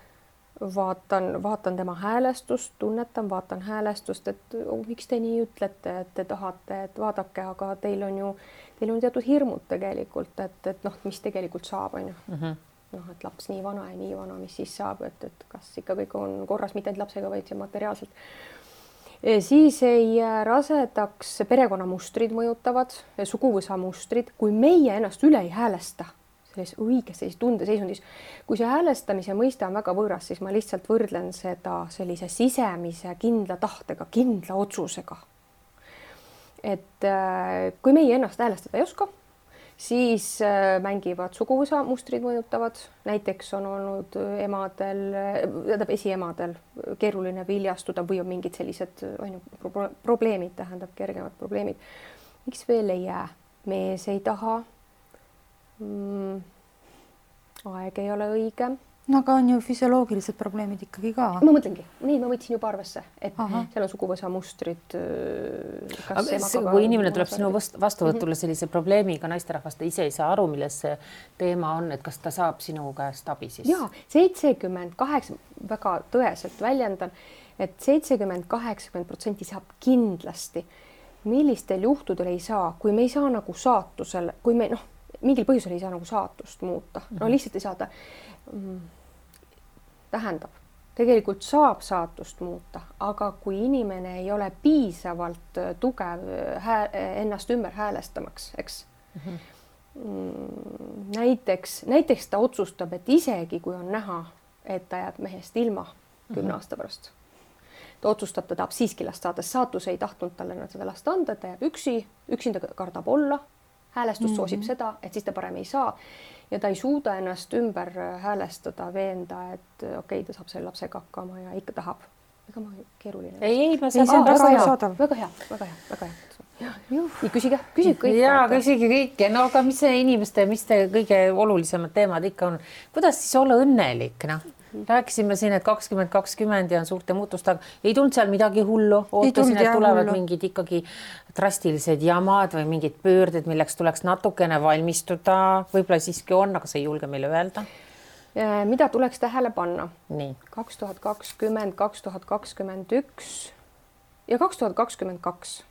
Vaatan tema häälestust, tunnetan, vaatan häälestust, et miks te nii ütlete, et te tahate, et vaadake, aga teil on teatud hirmud tegelikult, et mis tegelikult saab, on ju. Et laps nii vana, mis siis saab, et kas ikka kõik on korras, mitte ainult lapsega, vaid materiaalselt. Siis ei rasedaks perekonnamustrid mõjutavad, suguvõsa mustrid, kui meie ennast üle ei häälesta, selles tundeseisundis. Kui see häälestamise mõiste on väga võõras, siis ma lihtsalt võrdlen seda sellise sisemise kindla tahtega, kindla otsusega. Et kui meie ennast häälestada ei oska, siis mängivad suguvõsa mustrid mõjutavad. Näiteks on olnud esiemadel keeruline viljastuda või on mingid sellised probleemid, tähendab kergemad probleemid. Miks veel ei jää? Mees ei taha. aeg ei ole õige.
No aga on ju füsioloogilised probleemid ikkagi ka.
Ma mõtlengi, neid ma võtsin juba arvesse, et seal on suguvõsa mustrid.
Kui inimene tuleb sinu vastuvõtule sellise probleemiga, naisterahvast ise ei saa aru, milles see teema on, et kas ta saab sinu käest abi siis?
Jaa, 78, väga tõeselt väljendan, et 70-80% saab kindlasti. Millistel juhtudel ei saa, kui me ei saa nagu saatusel, kui me mingil põhjusel ei saa nagu saatust muuta, lihtsalt ei saada. Tähendab, tegelikult saab saatust muuta, aga kui inimene ei ole piisavalt tugev ennast ümber häälestamaks, eks. Näiteks ta otsustab, et isegi kui on näha, et ta jääb mehest ilma 10 aasta pärast, ta otsustab, ta tahab siiski last saada, saatus ei tahtnud talle seda last anda, et ta jääb üksinda kardab olla, häälestus soosib seda, et siis ta parem ei saa ja ta ei suuda ennast ümber häälestada, veenda, et okei, ta saab selle lapsega hakkama ja ikka tahab. Ega ma keeruline.
Ei, ma saan
väga hea. Nii, küsige kõik.
Jaa, küsige kõike. No aga mis see inimeste, mis te kõige olulisemad teemad ikka on? Kuidas siis olla õnnelik, Rääkisime siin, et 2020 ja on suurte muutustega. Ei tulnud seal midagi hullu. Ootasin, et tulevad mingid ikkagi drastilised jamad või mingid pöörded, milleks tuleks natukene valmistuda. Võib-olla siiski on, aga see ei julge meile öelda.
Mida tuleks tähele panna?
Nii.
2020, 2021 ja 2022.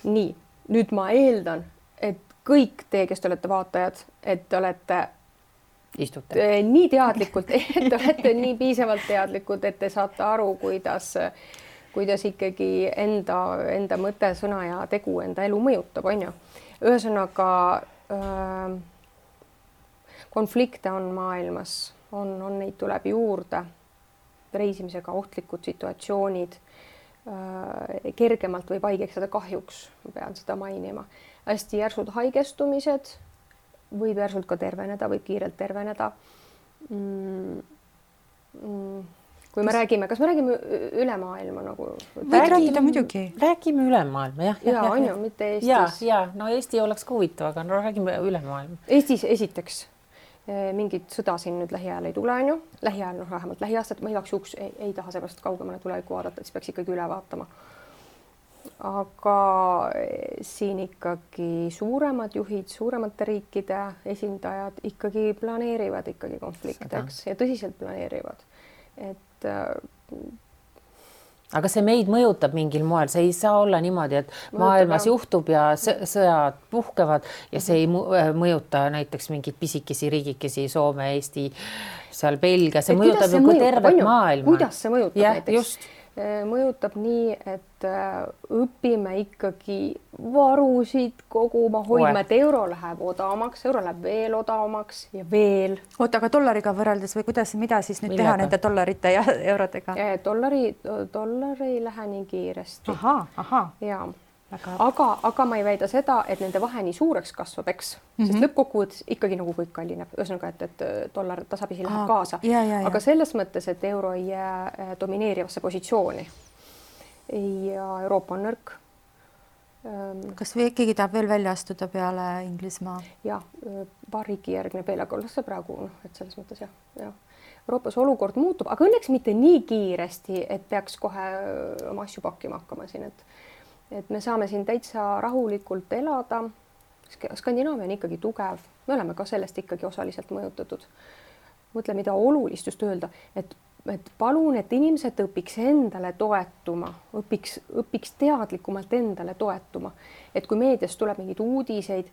Nii, nüüd ma eeldan, et kõik te, kes te olete vaatajad, et te olete nii teadlikult, et te olete nii piisavalt teadlikud, et te saate aru, kuidas ikkagi enda mõte, sõna ja tegu enda elu mõjutab, on ju. Ühesõnaga konflikte on maailmas, on neid tuleb juurde, reisimisega ohtlikud situatsioonid, kergemalt võib haigeks saada kahjuks, ma pean seda mainima. Hästi järsud haigestumised, võib järsult ka terveneda, võib kiirelt terveneda. Kui me räägime, kas me räägime üle maailma nagu?
Räägime üle maailma, jah.
Ja, on ju, mitte Eestis.
Ja, no Eesti oleks ka huvitav, aga no räägime üle maailma.
Eestis esiteks mingit sõda siin nüüd lähiajal ei tule, on ju. Lähiajal, vähemalt lähiaastat, ma igaks juhuks ei taha seepärast kaugemale tuleviku vaadata, siis peaks ikkagi üle vaatama. Aga siin ikkagi suuremad juhid, suuremate riikide esindajad ikkagi planeerivad ikkagi konflikteks ja tõsiselt planeerivad.
Aga see meid mõjutab mingil moel, see ei saa olla niimoodi, et maailmas juhtub ja sõjad puhkevad ja see ei mõjuta näiteks mingid pisikesi riigikesi, Soome, Eesti, seal Belgia, see mõjutab ju tervet maailma.
Kuidas see mõjutab näiteks? Mõjutab nii, et õpime ikkagi varusid koguma, hoidma, et euro läheb odavamaks, euro läheb veel odavamaks ja veel.
Oota, aga dollariga võrreldes või mida siis nüüd teha nende dollarite ja eurodega?
Dollar ei lähe nii kiiresti.
Aha.
Ja. Aga ma ei väida seda, et nende vahe nii suureks kasvab, eks, sest lõppkokkuvõttes ikkagi nagu kõik kallineb. Ühesõnaga, et dollar tasapisi läheb kaasa. Aga selles mõttes, et euro ei jää domineerivasse positsiooni ja Euroopa on nõrk.
Kas või ikkagi tahab veel välja astuda peale Inglismaa?
Ja, paar riiki järgne veel, aga see praegu, et selles mõttes jah. Euroopas olukord muutub, aga õnneks mitte nii kiiresti, et peaks kohe oma asju pakkima hakkama siin, et me saame siin täitsa rahulikult elada. Skandinaavia on ikkagi tugev. Me oleme ka sellest ikkagi osaliselt mõjutatud. Mõtle, mida olulist just öelda, et palun, et inimesed õpiks endale toetuma, õpiks teadlikumalt endale toetuma. Et kui meedias tuleb mingid uudiseid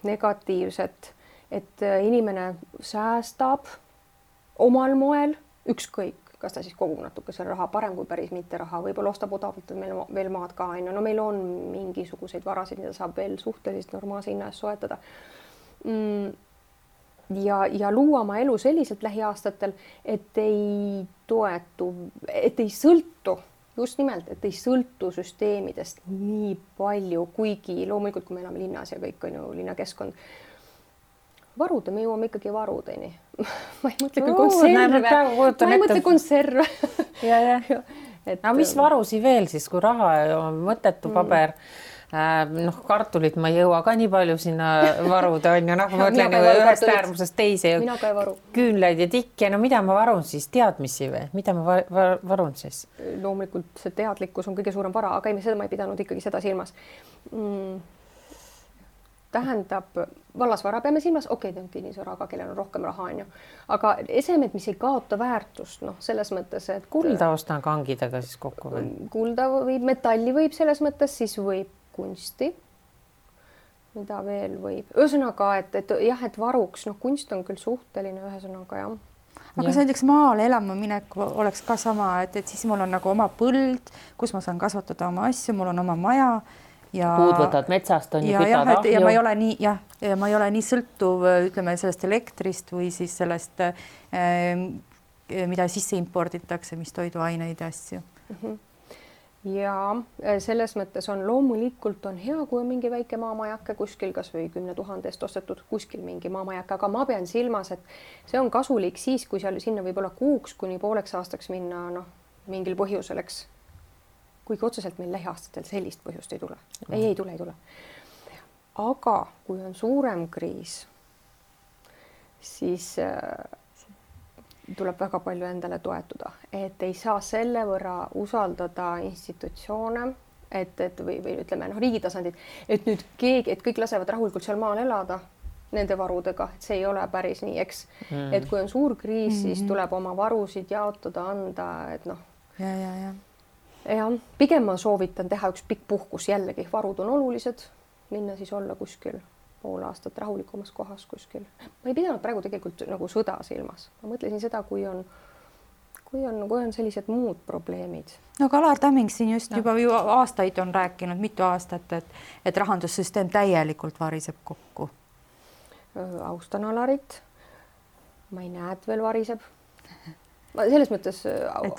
negatiivset, et inimene säästab omal moel ükskõik, kas ta siis kogub natuke selle raha parem kui päris mitte raha, võib-olla ostab odavalt meil veel maad ka, no meil on mingisuguseid varasid, mida saab veel suhteliselt normaalse hinna eest soetada. Ja luua oma elu selliselt lähiaastatel, et ei sõltu, just nimelt, et ei sõltu süsteemidest nii palju, kuigi loomulikult, kui me elame linnas ja kõik on ju linnakeskkond, varude, me jõuame ikkagi varudeni. Ma ei mõtle küll konserve.
Ja. No mis varusi veel siis, kui raha on mõttetu paber, noh, kartulit ma ei jõua ka nii palju sinna varuda, on ju, noh, ma mõtlen ühest äärmusest teise ja küünlaid ja tikki, no mida ma varun siis, teadmisi või, mida ma varun siis?
Loomulikult see teadlikkus on kõige suurem vara, aga seda ma ei pidanud ikkagi seda silmas. Tähendab, vallasvara peame silmas, okei, ta on kinnisvara, aga kellel on rohkem raha, on ju. Aga esemed, mis ei kaota väärtust, noh, selles mõttes, et
kulda ostan kangidega siis kokku või?
Kulda võib, metalli võib selles mõttes, siis võib kunsti, mida veel võib. Ühesõnaga, et jah, et varuks, noh, kunst on küll suhteline, ühesõnaga, jah.
Aga see näiteks maale elama minek oleks ka sama, et siis mul on nagu oma põld, kus ma saan kasvatada oma asju, mul on oma maja. Ja,
puud võtad metsast, on ju kütad ahju.
Ja ma ei ole nii, ma ei ole nii sõltuv, ütleme, sellest elektrist või siis sellest, mida sisse imporditakse, mis toiduaineid ja asju.
Ja selles mõttes on loomulikult on hea, kui on mingi väike maamajake kuskil, kas või 10 000 eest ostetud kuskil mingi maamajake, aga ma pean silmas, et see on kasulik siis, kui seal sinna võib olla kuuks kuni pooleks aastaks minna, noh, mingil põhjusel, eks. Kuigi otseselt meil lähiaastatel sellist põhjust ei tule. Ei tule. Aga kui on suurem kriis, siis tuleb väga palju endale toetuda, et ei saa selle võrra usaldada institutsioone, et või ütleme, noh, riigi tasandid, et nüüd keegi, et kõik lasevad rahulikult seal maal elada nende varudega, et see ei ole päris nii, eks. Et kui on suur kriis, siis tuleb oma varusid jaotada, anda, et noh. Ja pigem ma soovitan teha üks pikk puhkus jällegi, varud on olulised, minna siis olla kuskil pool aastat rahulikumas kohas kuskil. Ma ei pidanud praegu tegelikult nagu sõda silmas. Ma mõtlesin seda, kui on sellised muud probleemid.
No aga Alar Tamming siin just juba ju aastaid on rääkinud, mitu aastat, et rahandussüsteem täielikult variseb kokku.
Austan Alarit. Ma ei näe, et veel variseb. Ma selles mõttes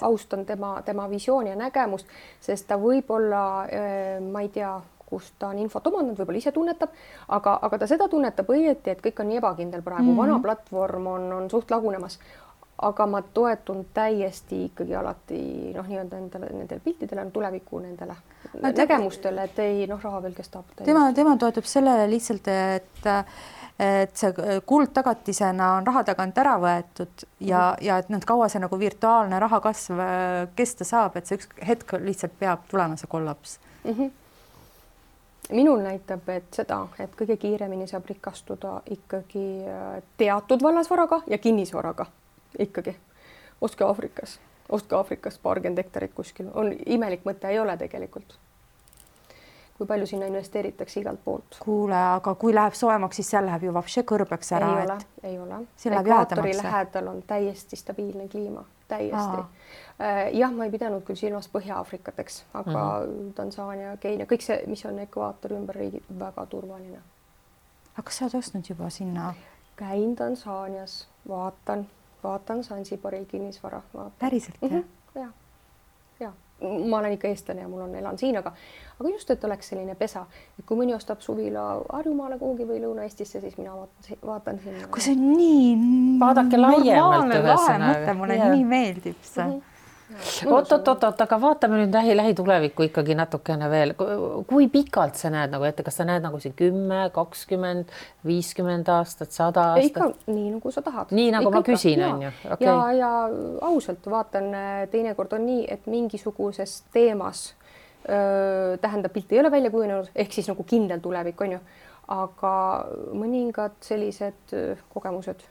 austan tema visiooni ja nägemust, sest ta võib-olla, ma ei tea, kus ta on infot omandanud, võib-olla ise tunnetab, aga ta seda tunnetab õieti, et kõik on nii ebakindel praegu. Vana platvorm on suht lagunemas, aga ma toetun täiesti ikkagi alati nii-öelda nendele piltidele, tuleviku nendele nägemustele, et ei, raha veel kestab.
Tema toetub sellele lihtsalt, et see kuldtagatisena on raha tagant ära võetud ja et kaua see nagu virtuaalne raha kasv kesta saab, et see üks hetk lihtsalt peab tulema see kollaps.
Minul näitab, et seda, et kõige kiiremini saab rikastuda ikkagi teatud vallasvaraga ja kinnisvaraga ikkagi. Ostke Aafrikas 20 hektarit kuskil. On imelik mõte, ei ole tegelikult. Kui palju sinna investeeritakse igalt poolt.
Kuule, aga kui läheb soemaks, siis seal läheb ju vapše kõrbeks ära.
Ei ole. Ekvaatori lähedal on täiesti stabiilne kliima. Täiesti. Jah, ma ei pidanud küll silmas Põhja-Aafrikat, eks, aga Tansaania, Keenia, kõik see, mis on ekvaatori ümber riigid, väga turvaline.
Aga kas sa oled ostnud juba sinna?
Käin Tansaanias, vaatan Sansibaril kinnisvara.
Päriselt,
jah? Ja. Ma olen ikka eestlane ja mul elan siin, aga just, et oleks selline pesa, et kui mõni ostab suvila Harjumaale kuhugi või Lõuna-Eestisse, siis mina vaatan sinna.
Kui see on nii
vaadake laiemalt
ühesõnaga. Mulle nii meeldib see.
Oot, aga vaatame nüüd lähitulevikku ikkagi natukene veel. Kui pikalt sa näed nagu ette, kas sa näed nagu see 10, 20, 50 aastat, 100 aastat?
Ikka nii, nagu sa tahad.
Nii, nagu ma küsin, on ju.
Ja ausalt vaatan, teinekord on nii, et mingisuguses teemas tähendab, pilt ei ole välja kujunenud, ehk siis nagu kindel tulevik, on ju. Aga mõningad sellised kogemused,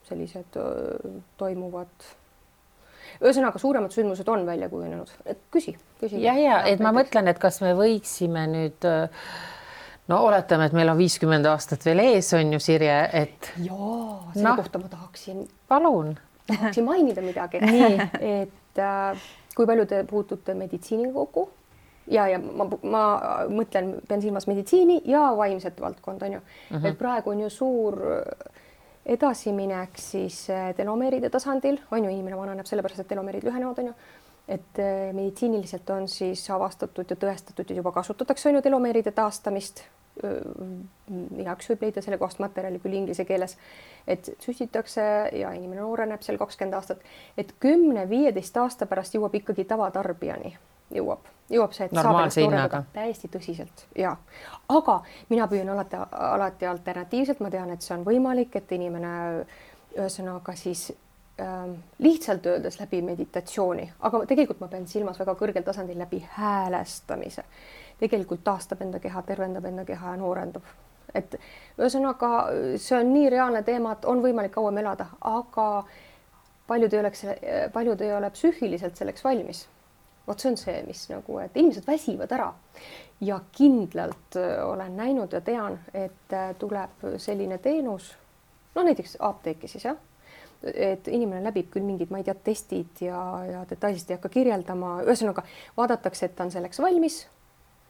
sellised toimuvad. Ühesõnaga, suuremad sündmused on välja kujunenud. Küsi.
Ja, et ma mõtlen, et kas me võiksime nüüd, oletame, et meil on 50 aastat veel ees, on ju, Sirje, et...
Jaa, selle kohta ma tahaksin...
Palun.
Tahaksin mainida midagi. Et kui palju te puutute meditsiiniga kokku ja ma mõtlen, pean silmas meditsiini ja vaimset valdkond, on ju. Et praegu on ju suur... edasiminek siis telomeeride tasandil, on ju, inimene vananeb sellepärast, et telomeerid lühenevad, on ju, et meditsiiniliselt on siis avastatud ja tõestatud ja juba kasutatakse, on ju, telomeeride taastamist. Igaüks võib leida selle kohast materjali küll inglise keeles, et süstitakse ja inimene nooreneb seal 20 aastat, et 10-15 aasta pärast jõuab ikkagi tavatarbijani, jõuab jõuab see, et
normaalse hinnaga.
Täiesti tõsiselt ja, aga mina püüan alati alternatiivselt, ma tean, et see on võimalik, et inimene ühesõnaga siis lihtsalt öeldes läbi meditatsiooni, aga tegelikult ma pean silmas väga kõrgel tasandil läbi häälestamise. Tegelikult taastab enda keha, tervendab enda keha ja noorendab. Et ühesõnaga see on nii reaalne teema, et on võimalik kauem elada, aga paljud ei ole psüühiliselt selleks valmis. Vot see on see, mis nagu, et inimesed väsivad ära ja kindlalt olen näinud ja tean, et tuleb selline teenus, no näiteks apteeki siis jah, et inimene läbib küll mingid, ma ei tea, testid ja detailselt ei hakka kirjeldama, ühesõnaga vaadatakse, et ta on selleks valmis,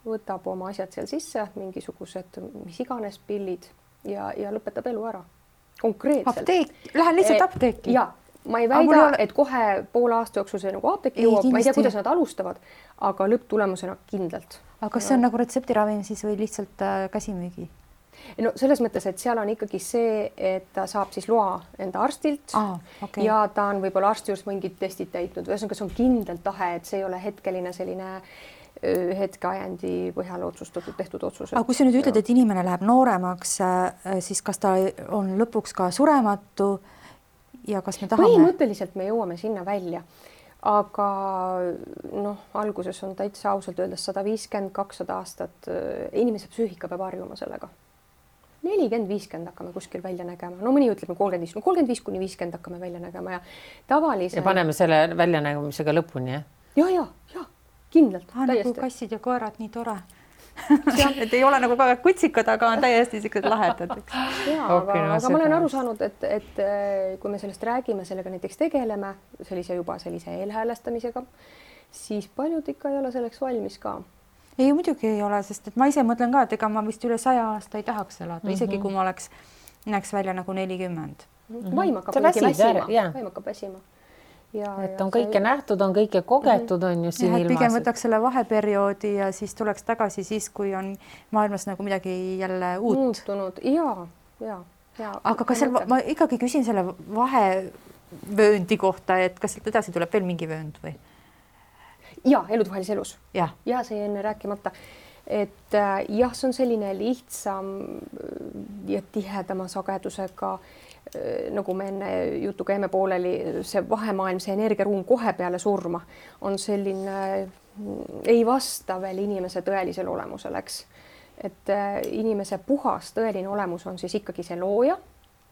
võtab oma asjad seal sisse, mingisugused mis iganes pillid ja lõpetab elu ära. Konkreetselt.
Apteek, lähen lihtsalt apteeki.
Ja, ma ei väida, et kohe poole aasta jooksul see nagu apteeki jõuab, ma ei tea, kuidas nad alustavad, aga lõpptulemusena kindlalt.
Aga kas see on nagu retseptiravim siis või lihtsalt käsimüügi?
No selles mõttes, et seal on ikkagi see, et ta saab siis loa enda arstilt ja ta on võib-olla arsti juures mingid testid täitnud, ühesõnaga see on kindlalt tahe, et see ei ole hetkeline selline hetkeajandi põhjal otsustatud, tehtud otsus.
Aga kui sa nüüd ütled, et inimene läheb nooremaks, siis kas ta on lõpuks ka surematu ja kas me tahame?
Põhimõtteliselt me jõuame sinna välja, aga noh, alguses on täitsa ausalt öeldes 150-200 aastat, inimese psüühika peab harjuma sellega. 40-50 hakkame kuskil välja nägema, no mõni ütleb 35-50 hakkame välja nägema ja tavalise...
Ja paneme selle väljanägemisega lõpuni, jah?
Ja. Kindlalt,
täiesti. Nagu kassid ja koerad, nii tore. et ei ole nagu kutsikad, aga on täiesti siuksed lahedad.
Aga ma olen aru saanud, et kui me sellest räägime, sellega näiteks tegeleme, sellise eelhäälestamisega, siis paljud ikka ei ole selleks valmis ka.
Ei, muidugi ei ole, sest et ma ise mõtlen ka, et ega ma vist üle 100 aasta ei tahaks elada, isegi kui ma näeks välja nagu 40.
Vaim hakkab väsima.
Et on kõike nähtud, on kõike kogetud, on ju siin ilmas.
Pigem võtaks selle vaheperioodi ja siis tuleks tagasi siis, kui on maailmas nagu midagi jälle uut.
Muutunud, ja.
Aga kas ma ikkagi küsin selle vahevööndi kohta, et kas sealt edasi tuleb veel mingi vöönd või?
Ja, elutuhalis elus.
Ja
see enne rääkimata. Et jah, see on selline lihtsam ja tihedama sagedusega, nagu me enne jutuga jäime pooleli, see vahemaailm, see energiaruum kohe peale surma on selline, ei vasta veel inimese tõelisele olemusele, eks. Et inimese puhas tõeline olemus on siis ikkagi see looja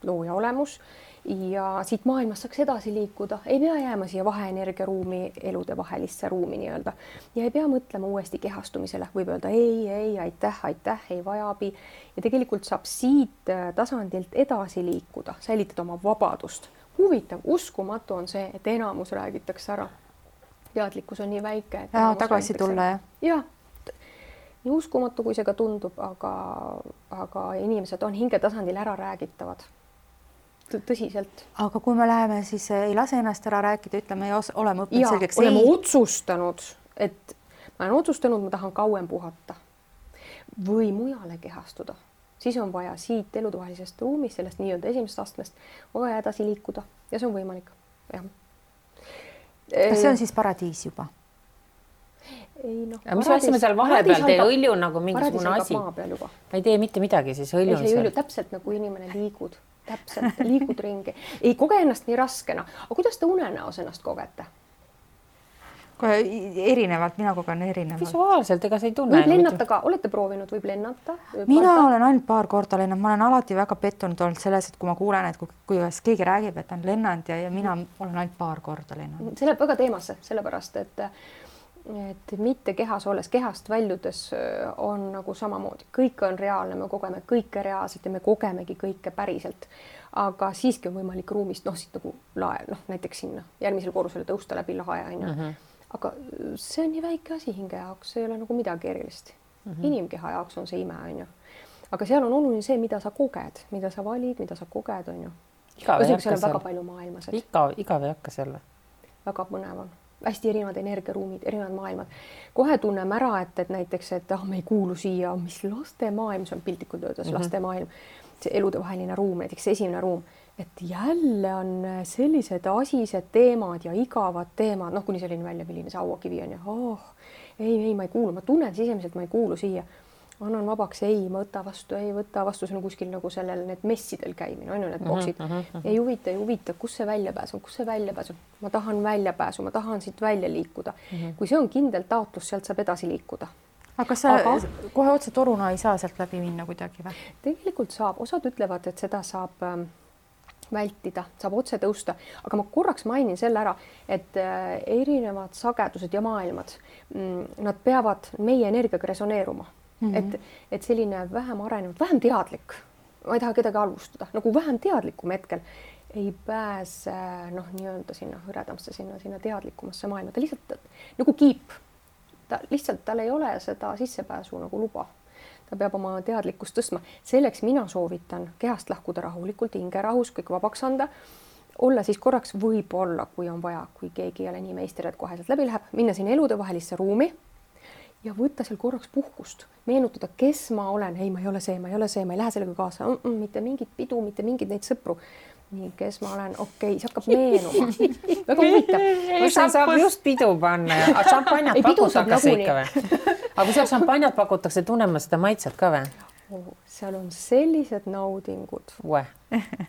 olemus ja siit maailmast saaks edasi liikuda, ei pea jääma siia vaheenergiaruumi, elude vahelisse ruumi nii-öelda ja ei pea mõtlema uuesti kehastumisele, võib öelda ei, aitäh, ei vaja abi ja tegelikult saab siit tasandilt edasi liikuda, säilitada oma vabadust. Huvitav, uskumatu on see, et enamus räägitakse ära. Teadlikkus on nii väike.
Tagasi tulla, jah?
Jah, nii uskumatu, kui see ka tundub, aga inimesed on hingetasandil ära räägitavad. Tõsiselt.
Aga kui me läheme, siis ei lase ennast ära rääkida, ütleme ja oleme õppinud selgeks.
Oleme otsustanud, et ma olen otsustanud, ma tahan kauem puhata või mujale kehastuda. Siis on vaja siit elutuhalisest ruumist, sellest nii-öelda esimesest astmest, on vaja edasi liikuda ja see on võimalik. Ja.
Kas see on siis paradiis juba?
Ei, no,
mis asjame seal vahepeal, tee õlju nagu mingisugune asi. Ma ei tee mitte midagi, siis õlju on seal.
Täpselt nagu inimene liigud. Täpselt, liigud ringi. Ei koge ennast nii raskena. Aga kuidas te unenäos ennast kogete?
Kohe erinevalt, mina kogen erinevalt.
Visuaalselt, ega sa ei tunne.
Võib lennata ka, olete proovinud, võib lennata?
Mina olen ainult paar korda lennanud, ma olen alati väga pettunud olnud selles, et kui ma kuulen, et kui keegi räägib, et on lennanud ja mina olen ainult paar korda lennanud.
See läheb väga teemasse, sellepärast, et mitte kehas olles, kehast väljudes on nagu samamoodi. Kõik on reaalne, me kogeme kõike reaalselt ja me kogemegi kõike päriselt. Aga siiski on võimalik ruumist, siit nagu lae, näiteks sinna järgmisel korrusele tõusta läbi lae. Aga see on nii väike asi hinge jaoks, see ei ole nagu midagi erilist. Inimkeha jaoks on see ime, on ju. Aga seal on oluline see, mida sa koged, mida sa valid, mida sa koged, on ju.
Igav ei hakka
seal. Väga palju maailmas.
Igav ei hakka seal.
Väga põnev on. Hästi erinevad energiaruumid, erinevad maailmad. Kohe tunneme ära, et näiteks, et me ei kuulu siia, mis laste maailm, see on piltlikult öeldes laste maailm. see eludevaheline ruum, näiteks esimene ruum, et jälle on sellised asised teemad ja igavad teemad, noh, kuni selline välja, milline see hauakivi on ja ei, ma ei kuulu, ma tunnen sisemiselt, ma ei kuulu siia. Annan vabaks, ei võta vastu, see on kuskil nagu sellel need messidel käimine, on ju need boksid. Ei huvita, kus see väljapääs on, ma tahan väljapääsu, ma tahan siit välja liikuda. Kui see on kindel taotlus, sealt saab edasi liikuda.
Aga kas sa kohe otse toruna ei saa sealt läbi minna kuidagi või?
Tegelikult saab, osad ütlevad, et seda saab vältida, saab otse tõusta, aga ma korraks mainin selle ära, et erinevad sagedused ja maailmad, nad peavad meie energiaga resoneeruma. Et selline vähem arenenud, vähem teadlik, ma ei taha kedagi halvustada, nagu vähem teadlikum hetkel ei pääse nii-öelda sinna hõredamasse, sinna teadlikumasse maailma, ta lihtsalt nagu kiip, tal ei ole seda sissepääsu nagu luba, ta peab oma teadlikkust tõstma, selleks mina soovitan kehast lahkuda rahulikult, hingerahus, kõik vabaks anda, olla siis korraks võib-olla, kui on vaja, kui keegi ei ole nii meister, et kohe sealt läbi läheb, minna sinna eludevahelisse ruumi ja võtta seal korraks puhkust, meenutada, kes ma olen, ei, ma ei ole see, ma ei lähe sellega kaasa, mitte mingit pidu, mitte mingid neid sõpru. Nii, kes ma olen, okei, see hakkab meenuma. Väga huvitav.
See saab just pidu panna ja šampanjat pakutakse ikka või? Aga kui seal šampanjat pakutakse, tunnema seda maitset ka või?
Seal on sellised naudingud.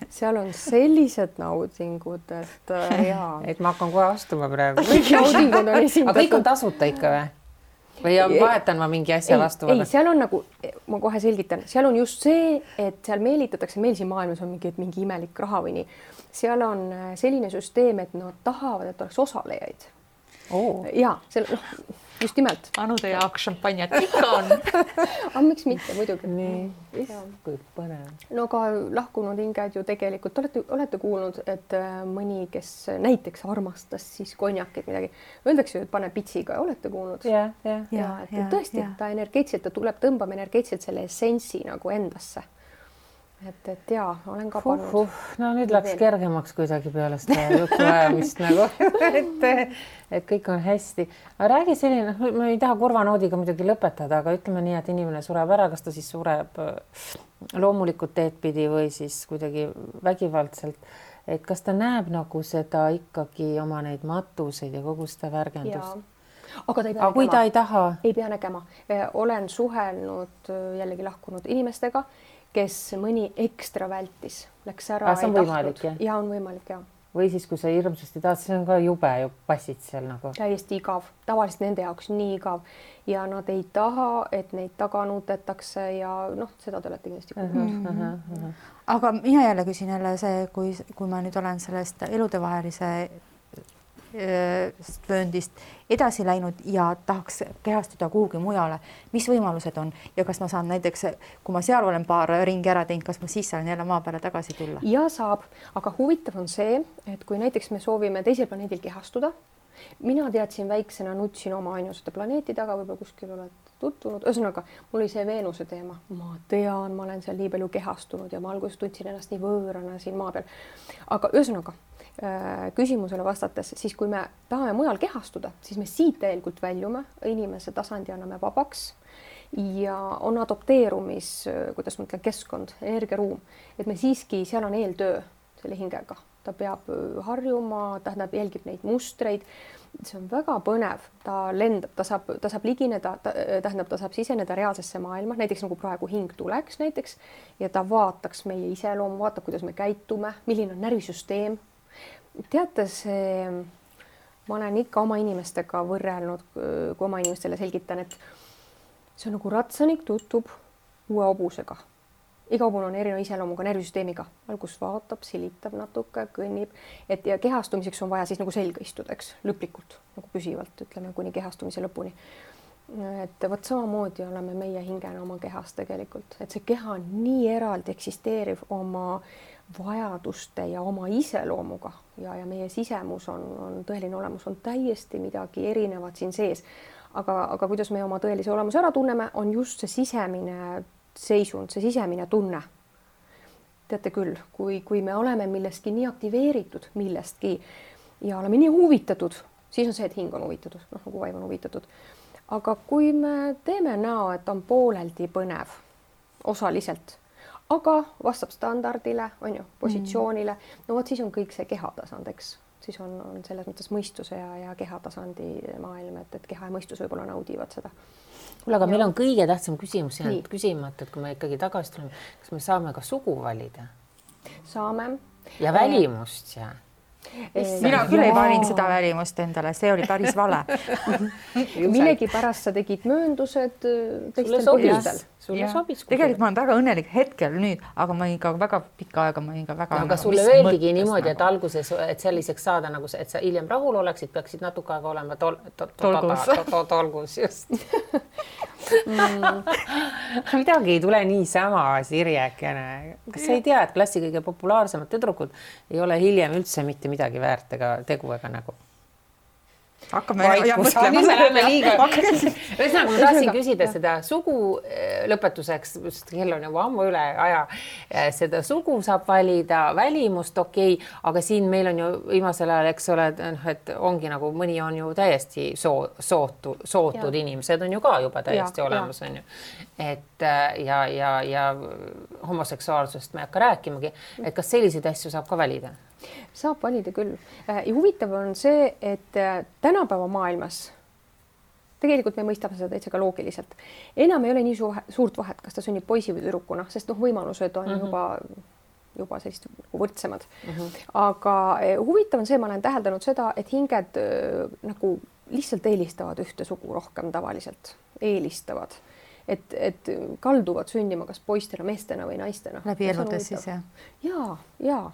Seal on sellised naudingud, et jaa.
Et ma hakkan kohe astuma praegu.
Kõik naudingud on esindatud.
Aga kõik on tasuta ikka või? Või vahetan ma mingi asja vastu?
Ei, seal on nagu, ma kohe selgitan, seal on just see, et seal meelitatakse, meil siin maailmas on mingi imelik raha või nii. Seal on selline süsteem, et nad tahavad, et oleks osalejaid. Ja, just nimelt.
Anude jaoks šampanjat ikka on.
Aga miks mitte, muidugi.
Nii, kui põnev.
No ka lahkunud hinged ju tegelikult, olete kuulnud, et mõni, kes näiteks armastas siis konjakit midagi, öeldakse ju, et pane pitsiga, olete kuulnud?
Ja,
et tõesti, ta energeetselt, ta tuleb tõmbama energeetselt selle essentsi nagu endasse. Et jaa, olen ka pannud.
No nüüd läks kergemaks kuidagi peale seda juttu ajamist nagu, et kõik on hästi. Aga räägi selline, ma ei taha kurvanoodiga muidugi lõpetada, aga ütleme nii, et inimene sureb ära, kas ta siis sureb loomulikult teed pidi või siis kuidagi vägivaldselt. Et kas ta näeb nagu seda ikkagi oma neid matuseid ja kogu seda värgendust?
Aga
kui ta ei taha?
Ei pea nägema. Olen suhelnud jällegi lahkunud inimestega, kes mõni ekstra vältis, läks ära.
See on võimalik, jah?
Ja on võimalik, jah.
Või siis, kui sa hirmsasti tahad, see on ka jube ju passid seal nagu.
Täiesti igav, tavaliselt nende jaoks nii igav ja nad ei taha, et neid taga nutetakse ja seda te olete kindlasti kuulnud.
Aga mina jälle küsin see, kui ma nüüd olen sellest eludevahelise vööndist edasi läinud ja tahaks kehastuda kuhugi mujale, mis võimalused on ja kas ma saan näiteks, kui ma seal olen paar ringi ära teinud, kas ma siis saan jälle maa peale tagasi tulla?
Ja saab, aga huvitav on see, et kui näiteks me soovime teisel planeedil kehastuda, mina teadsin väiksena, nutsin oma ainusate planeeti taga, võib-olla kuskil oled tutvunud, ühesõnaga mul oli see Veenuse teema, ma tean, ma olen seal nii palju kehastunud ja ma alguses tundsin ennast nii võõrana siin maa peal, aga ühesõnaga küsimusele vastates, siis kui me tahame mujal kehastuda, siis me siit täielikult väljume, inimese tasandi anname vabaks ja on adopteerumis, kuidas ma ütlen, keskkond, energiaruum, et me siiski, seal on eeltöö selle hingega, ta peab harjuma, tähendab, jälgib neid mustreid, see on väga põnev, ta lendab, ta saab ligineda, tähendab, ta saab siseneda reaalsesse maailma, näiteks nagu praegu hing tuleks näiteks ja ta vaataks meie iseloomu, vaatab, kuidas me käitume, milline on närvisüsteem. Teate, ma olen ikka oma inimestega võrrelnud, kui oma inimestele selgitan, et see on nagu ratsanik tutvub uue hobusega. Iga hobune on erineva iseloomuga, närvisüsteemiga. Algus vaatab, silitab natuke, kõnnib. Ja kehastumiseks on vaja siis nagu selga istuda, eks, lõplikult, nagu püsivalt, ütleme, kuni kehastumise lõpuni. Et võt samamoodi oleme meie hingena oma kehas tegelikult. Et see keha on nii eraldi eksisteeriv oma vajaduste ja oma iseloomuga ja meie sisemus on tõeline olemus, on täiesti midagi erinevat siin sees. Aga kuidas me oma tõelise olemuse ära tunneme, on just see sisemine seisund, see sisemine tunne. Teate küll, kui me oleme millestki nii aktiveeritud millestki ja oleme nii huvitatud, siis on see, et hing on huvitatud, nagu vaim on huvitatud. Aga kui me teeme näo, et on pooleldi põnev, osaliselt, aga vastab standardile, on ju, positsioonile. No vot siis on kõik see kehatasand, eks. Siis on selles mõttes mõistuse ja kehatasandi maailm, et keha ja mõistus võib-olla naudivad seda.
Kuule, aga meil on kõige tähtsam küsimus jäänud küsimata, et kui me ikkagi tagasi tuleme, kas me saame ka sugu valida?
Saame.
Ja välimust ja?
Mina küll ei valinud seda välimust endale, see oli päris vale.
Millegi pärast sa tegid mööndused teistel põhjustel.
Sulle sobis.
Tegelikult ma olen väga õnnelik hetkel nüüd, aga ma ikka väga pikka aega, ma ikka väga...
Aga sulle öeldigi niimoodi, et alguses, et selliseks saada, nagu et sa hiljem rahul oleksid, peaksid natuke aega olema tolgus just. Midagi ei tule niisama, Sirjekene. Kas sa ei tea, et klassi kõige populaarsemad tüdrukud ei ole hiljem üldse mitte midagi väärt ega tegu ega nägu?
Hakkame mõtlema.
Ühesõnaga, ma tahtsin küsida seda sugu lõpetuseks, kell on juba ammu üle aja, seda sugu saab valida, välimust aga siin meil on ju viimasel ajal, eks ole, et ongi nagu mõni on ju täiesti sootud inimesed on ju ka juba täiesti olemas, on ju. Et ja homoseksuaalsust me ei hakka rääkimagi, et kas selliseid asju saab ka valida?
Saab valida küll. Ja huvitav on see, et tänapäeva maailmas tegelikult me mõistame seda täitsa ka loogiliselt. Enam ei ole nii suurt vahet, kas ta sünnib poisi või tüdrukuna, sest võimalused on juba sellist võrdsemad. Aga huvitav on see, ma olen täheldanud seda, et hinged nagu lihtsalt eelistavad ühte sugu rohkem tavaliselt. Eelistavad. Et kalduvad sündima kas poistena, meestena või naistena.
Läbi eludes siis, jah?
Jaa.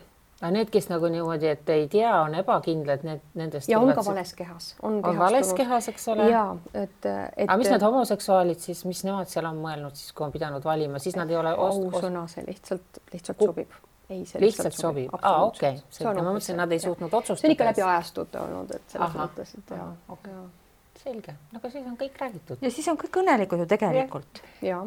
Aga need, kes nagu niimoodi, et ei tea, on ebakindlad, nendest...
Ja on ka vales kehas.
On vales kehas, eks ole?
Jaa,
Aga mis need homoseksuaalid siis, mis nemad seal on mõelnud siis, kui on pidanud valima, siis nad ei ole...
Ausõna, see lihtsalt sobib. Ei, see
lihtsalt sobib? Okei. Ma mõtlesin, nad ei suutnud otsustada.
See on ikka läbi ajastute olnud, et selles mõttes, et jaa.
Selge. Aga siis on kõik räägitud.
Ja siis on kõik õnnelikud ju tegelikult.
Jaa.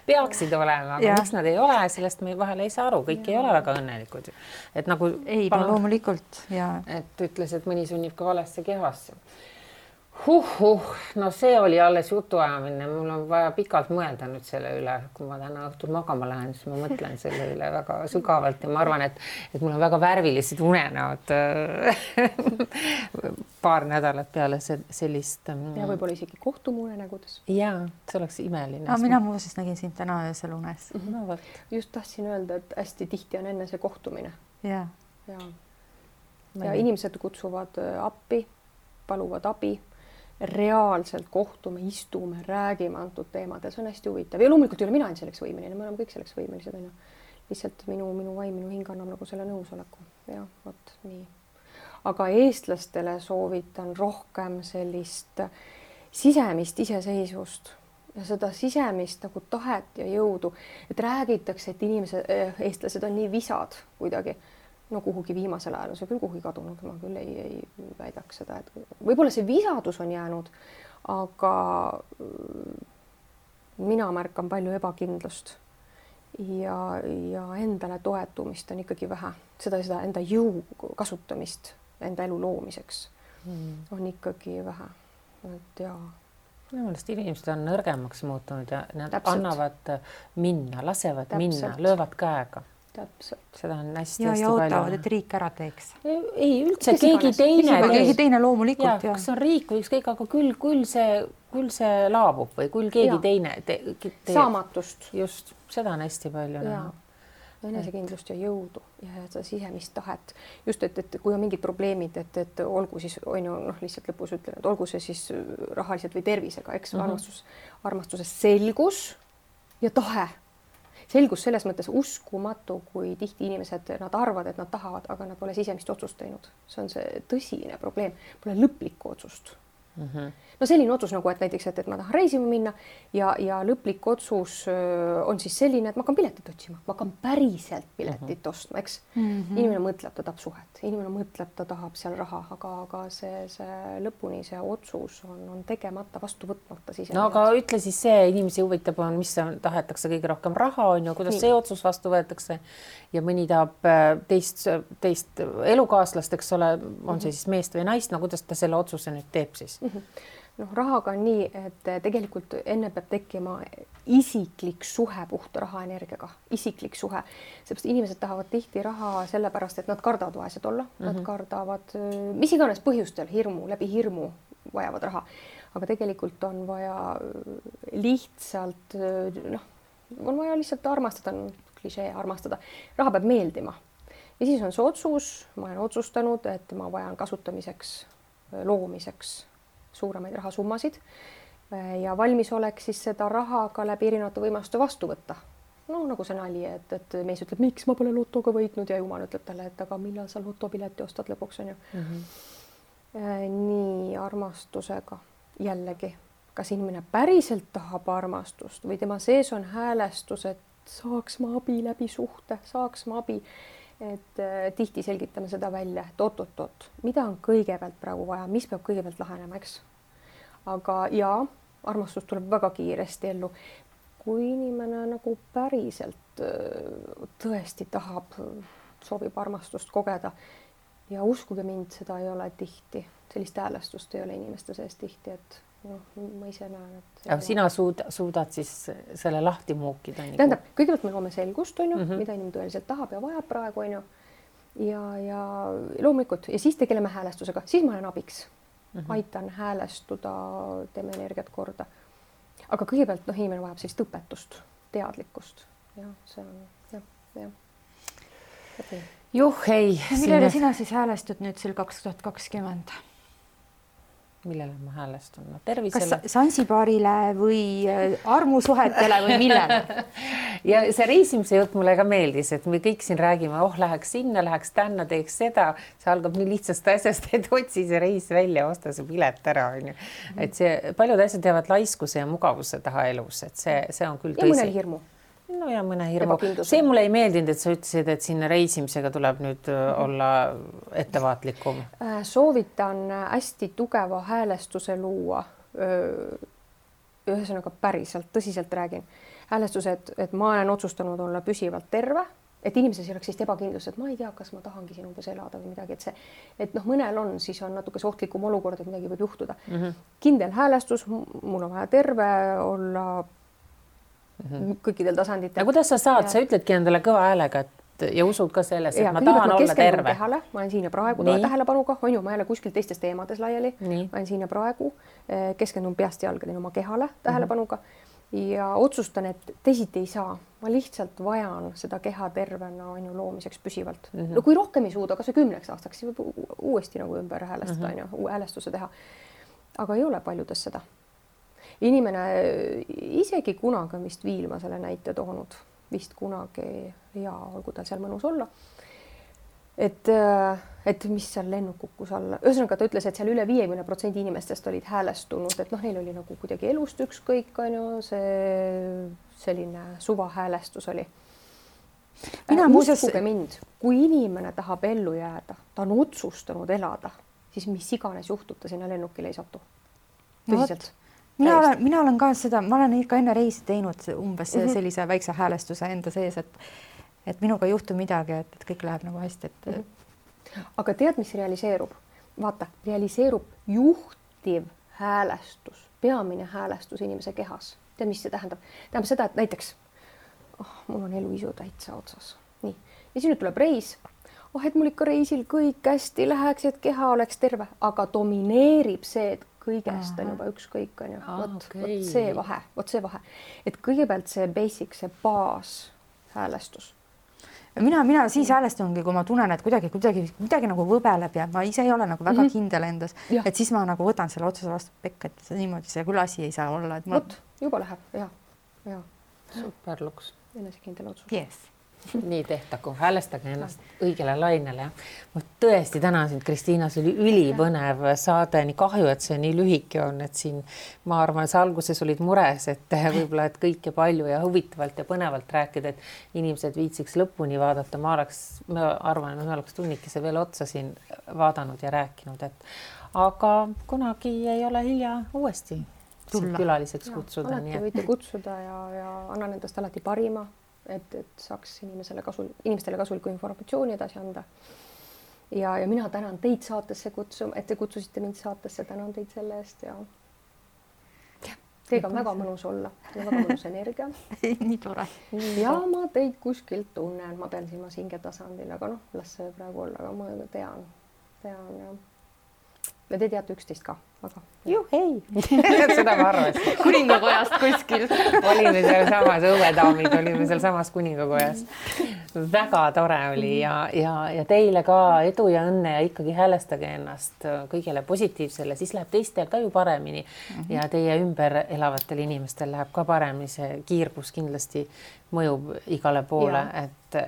Peaksid olema, aga miks nad ei ole, sellest me vahel ei saa aru, kõik ei ole väga õnnelikud. Et nagu...
Ei, loomulikult.
Et ütles, et mõni sunnib ka valesse kehasse. No see oli alles jutuajamine, mul on vaja pikalt mõelda nüüd selle üle, kui ma täna õhtul magama lähen, siis ma mõtlen selle üle väga sügavalt ja ma arvan, et mul on väga värvilised unenäod paar nädalat peale sellist...
Ja võib-olla isegi kohtume unenägudes.
Jaa, see oleks imeline.
Mina muuseas nägin sind täna öösel unes.
Just tahtsin öelda, et hästi tihti on enne see kohtumine.
Ja
inimesed kutsuvad appi, paluvad abi. Reaalselt kohtume, istume, räägime antud teemad ja see on hästi huvitav. Ja loomulikult ei ole mina ainult selleks võimeline, me oleme kõik selleks võimelised. Lihtsalt minu vaim, minu hing annab nagu selle nõusoleku. Ja, vot nii. Aga eestlastele soovitan rohkem sellist sisemist iseseisvust ja seda sisemist nagu tahet ja jõudu. Et räägitakse, et eestlased on nii visad kuidagi. No kuhugi viimasel ajal on see küll kuhugi kadunud, ma küll ei väidaks seda, et võib-olla see visadus on jäänud, aga mina märkan palju ebakindlust ja endale toetumist on ikkagi vähe. Seda enda jõu kasutamist enda elu loomiseks on ikkagi vähe. Et jaa.
Minu meelest inimesed on nõrgemaks muutunud ja nad annavad minna, lasevad minna, löövad käega.
Täpselt.
Seda on hästi
ja ootavad, et riik ära teeks.
Ei, üldse keegi
teine loomulikult.
Kas on riik või ükskõik, aga küll see laabub või küll keegi teine.
Saamatust.
Just, seda on hästi palju.
Enesekindlust ja jõudu ja seda sisemist tahet. Just, et kui on mingid probleemid, et olgu siis, lihtsalt lõpus ütlen, et olgu see siis rahaliselt või tervisega, eks armastuses selgus ja tahe. Selgus selles mõttes uskumatu, kui tihti inimesed, nad arvavad, et nad tahavad, aga nad pole sisemist otsust teinud. See on see tõsine probleem. Pole lõplikku otsust. No selline otsus nagu, et näiteks, et ma tahan reisima minna ja lõplik otsus on siis selline, et ma hakkan piletit otsima. Ma hakkan päriselt piletit ostma, eks? Inimene mõtleb, ta tahab suhet. Inimene mõtleb, ta tahab seal raha, aga see lõpuni see otsus on tegemata, vastu võtmata.
No aga ütle siis see, inimesi huvitab on, mis tahetakse kõige rohkem raha on ju, kuidas see otsus vastu võetakse ja mõni tahab teist elukaaslast, eks ole, on see siis meest või naist, no kuidas ta selle otsuse nüüd teeb siis?
noh, rahaga on nii, et tegelikult enne peab tekkima isiklik suhe puhta rahaenergiaga, isiklik suhe, seepärast inimesed tahavad tihti raha sellepärast, et nad kardavad vaesed olla, nad kardavad mis iganes põhjustel läbi hirmu vajavad raha, aga tegelikult on vaja lihtsalt on vaja lihtsalt armastada, klišee armastada, raha peab meeldima ja siis on see otsus, ma olen otsustanud, et ma vajan kasutamiseks, loomiseks suuremaid rahasummasid ja valmisolek siis seda raha ka läbi erinevate võimaluste vastu võtta. No nagu see nali, et mees ütleb, miks ma pole lotoga võitnud ja jumal ütleb talle, et aga millal sa lotopileti ostad lõpuks on ju. Nii armastusega jällegi, kas inimene päriselt tahab armastust või tema sees on häälestus, et saaks ma abi läbi suhte, saaks ma abi. Et tihti selgitame seda välja, et oot, mida on kõigepealt praegu vaja, mis peab kõigepealt lahenema, eks? Aga jaa, armastus tuleb väga kiiresti ellu. Kui inimene nagu päriselt tõesti tahab, soovib armastust kogeda ja uskuge mind, seda ei ole tihti, sellist häälestust ei ole inimeste sees tihti, et ma ise näen, et...
Aga sina suudad siis selle lahti muukida?
Tähendab, kõigepealt me loome selgust, on ju, mida inimene tõeliselt tahab ja vajab praegu, on ju. Ja loomulikult, ja siis tegeleme häälestusega, siis ma olen abiks. Aitan häälestuda, teeme energiat korda. Aga kõigepealt inimene vajab sellist õpetust, teadlikkust. Ja see on, jah.
Juh, ei.
Millele sina siis häälestud nüüd sel 2020?
Millele ma häälestun? Tervisele.
Kas Sansibarile või armusuhetele või millele?
Ja see reisimise jutt mulle ka meeldis, et me kõik siin räägime, läheks sinna, läheks tänna, teeks seda. See algab nii lihtsast asjast, et otsi see reis välja, osta see pilet ära. Et see paljud asjad jäävad laiskuse ja mugavuse taha elus, et see on küll tõsi.
Ja mõnel hirmu.
No ja mõne hirmu. See mulle ei meeldinud, et sa ütlesid, et sinna reisimisega tuleb nüüd olla ettevaatlikum.
Soovitan hästi tugeva häälestuse luua. Ühesõnaga päriselt, tõsiselt räägin. Häälestused, et ma olen otsustanud olla püsivalt terve, et inimeses ei oleks sellist ebakindlust, et ma ei tea, kas ma tahangi siin umbes elada või midagi, et mõnel on, siis on natuke ohtlikum olukord, et midagi võib juhtuda. Kindel häälestus, mul on vaja terve olla kõikidel tasanditel.
Ja kuidas sa saad? Sa ütledki endale kõva häälega ja usud ka selles, et ma tahan olla terve.
Kehale, ma olen siin ja praegu tähelepanuga, on ju, ma jälle kuskil teistes teemades laiali. Ma olen siin ja praegu, keskendun peast jalgadeni oma kehale tähelepanuga ja otsustan, et teisiti ei saa. Ma lihtsalt vajan seda keha tervena on ju loomiseks püsivalt. No kui rohkem ei suuda, kas või 10 aastaks, siis võib uuesti nagu ümber häälestada, on ju, uue häälestuse teha. Aga ei ole paljudes seda. Inimene isegi kunagi on vist Viilma selle näite toonud, vist kunagi ja olgu tal seal mõnus olla. Et mis seal lennuk kukkus alla. Ühesõnaga ta ütles, et seal üle 50% inimestest olid häälestunud, et neil oli nagu kuidagi elust ükskõik, on ju, see selline suva häälestus oli. Uskuge mind, kui inimene tahab ellu jääda, ta on otsustanud elada, siis mis iganes juhtub, ta sinna lennukile ei satu. Tõsiselt.
Mina olen ka seda, ma olen ikka enne reisi teinud umbes sellise väikse häälestuse enda sees, et minuga ei juhtu midagi, et kõik läheb nagu hästi.
Aga tead, mis realiseerub? Vaata, realiseerub juhtiv häälestus, peamine häälestus inimese kehas. Tead, mis see tähendab? Tähendab seda, et näiteks mul on eluisu täitsa otsas. Nii. Ja siin nüüd tuleb reis. Et mul ikka reisil kõik hästi läheks, et keha oleks terve, aga domineerib see, et kõigest on juba ükskõik, on ju. Vot see vahe. Et kõigepealt see basic, see baas häälestus.
Mina siis häälestungi, kui ma tunnen, et midagi nagu võbeleb ja ma ise ei ole nagu väga kindel endas, et siis ma nagu võtan selle otsuse vastu pekka, et niimoodi see küll asi ei saa olla.
Vot, juba läheb, ja.
Super luks.
Enesekindel otsus.
Yes.
Nii tehtagu, häälestage ennast õigele lainele. Ma tõesti tänan sind, Kristiina, see oli ülipõnev saade, nii kahju, et see nii lühike on, et siin ma arvan, et sa alguses olid mures, et võib-olla et kõike palju ja huvitavalt ja põnevalt rääkida, et inimesed viitsiks lõpuni vaadata. Ma arvan, et me oleks tunnikese veel otsa siin vaadanud ja rääkinud, aga kunagi ei ole hilja uuesti külaliseks kutsuda.
Alati võite kutsuda ja annan endast alati parima. Et saaks inimestele kasulikku informatsiooni edasi anda. Ja mina tänan teid saatesse et te kutsusite mind saatesse, tänan teid selle eest ja Teiega on väga mõnus olla, väga mõnus energia.
Nii tore.
Ja ma teid kuskilt tunnen, ma pean silmas hingetasandil, aga las see praegu olla, aga ma tean ja te teate üksteist ka, aga
hei. Seda ma arvasin.
Kuningakojast kuskil.
Olime seal samas õuedaamid, olime seal samas kuningakojas. Väga tore oli ja teile ka edu ja õnne ja ikkagi häälestage ennast kõigele positiivsele, siis läheb teistel ka ju paremini ja teie ümber elavatel inimestel läheb ka paremini, see kiirgus kindlasti mõjub igale poole, et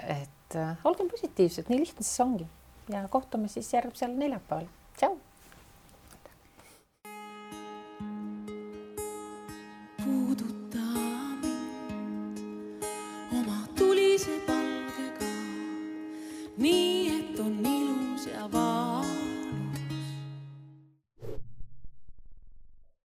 olgem positiivsed, nii lihtne siis ongi ja kohtume siis järgmisel neljapäeval. Tšau!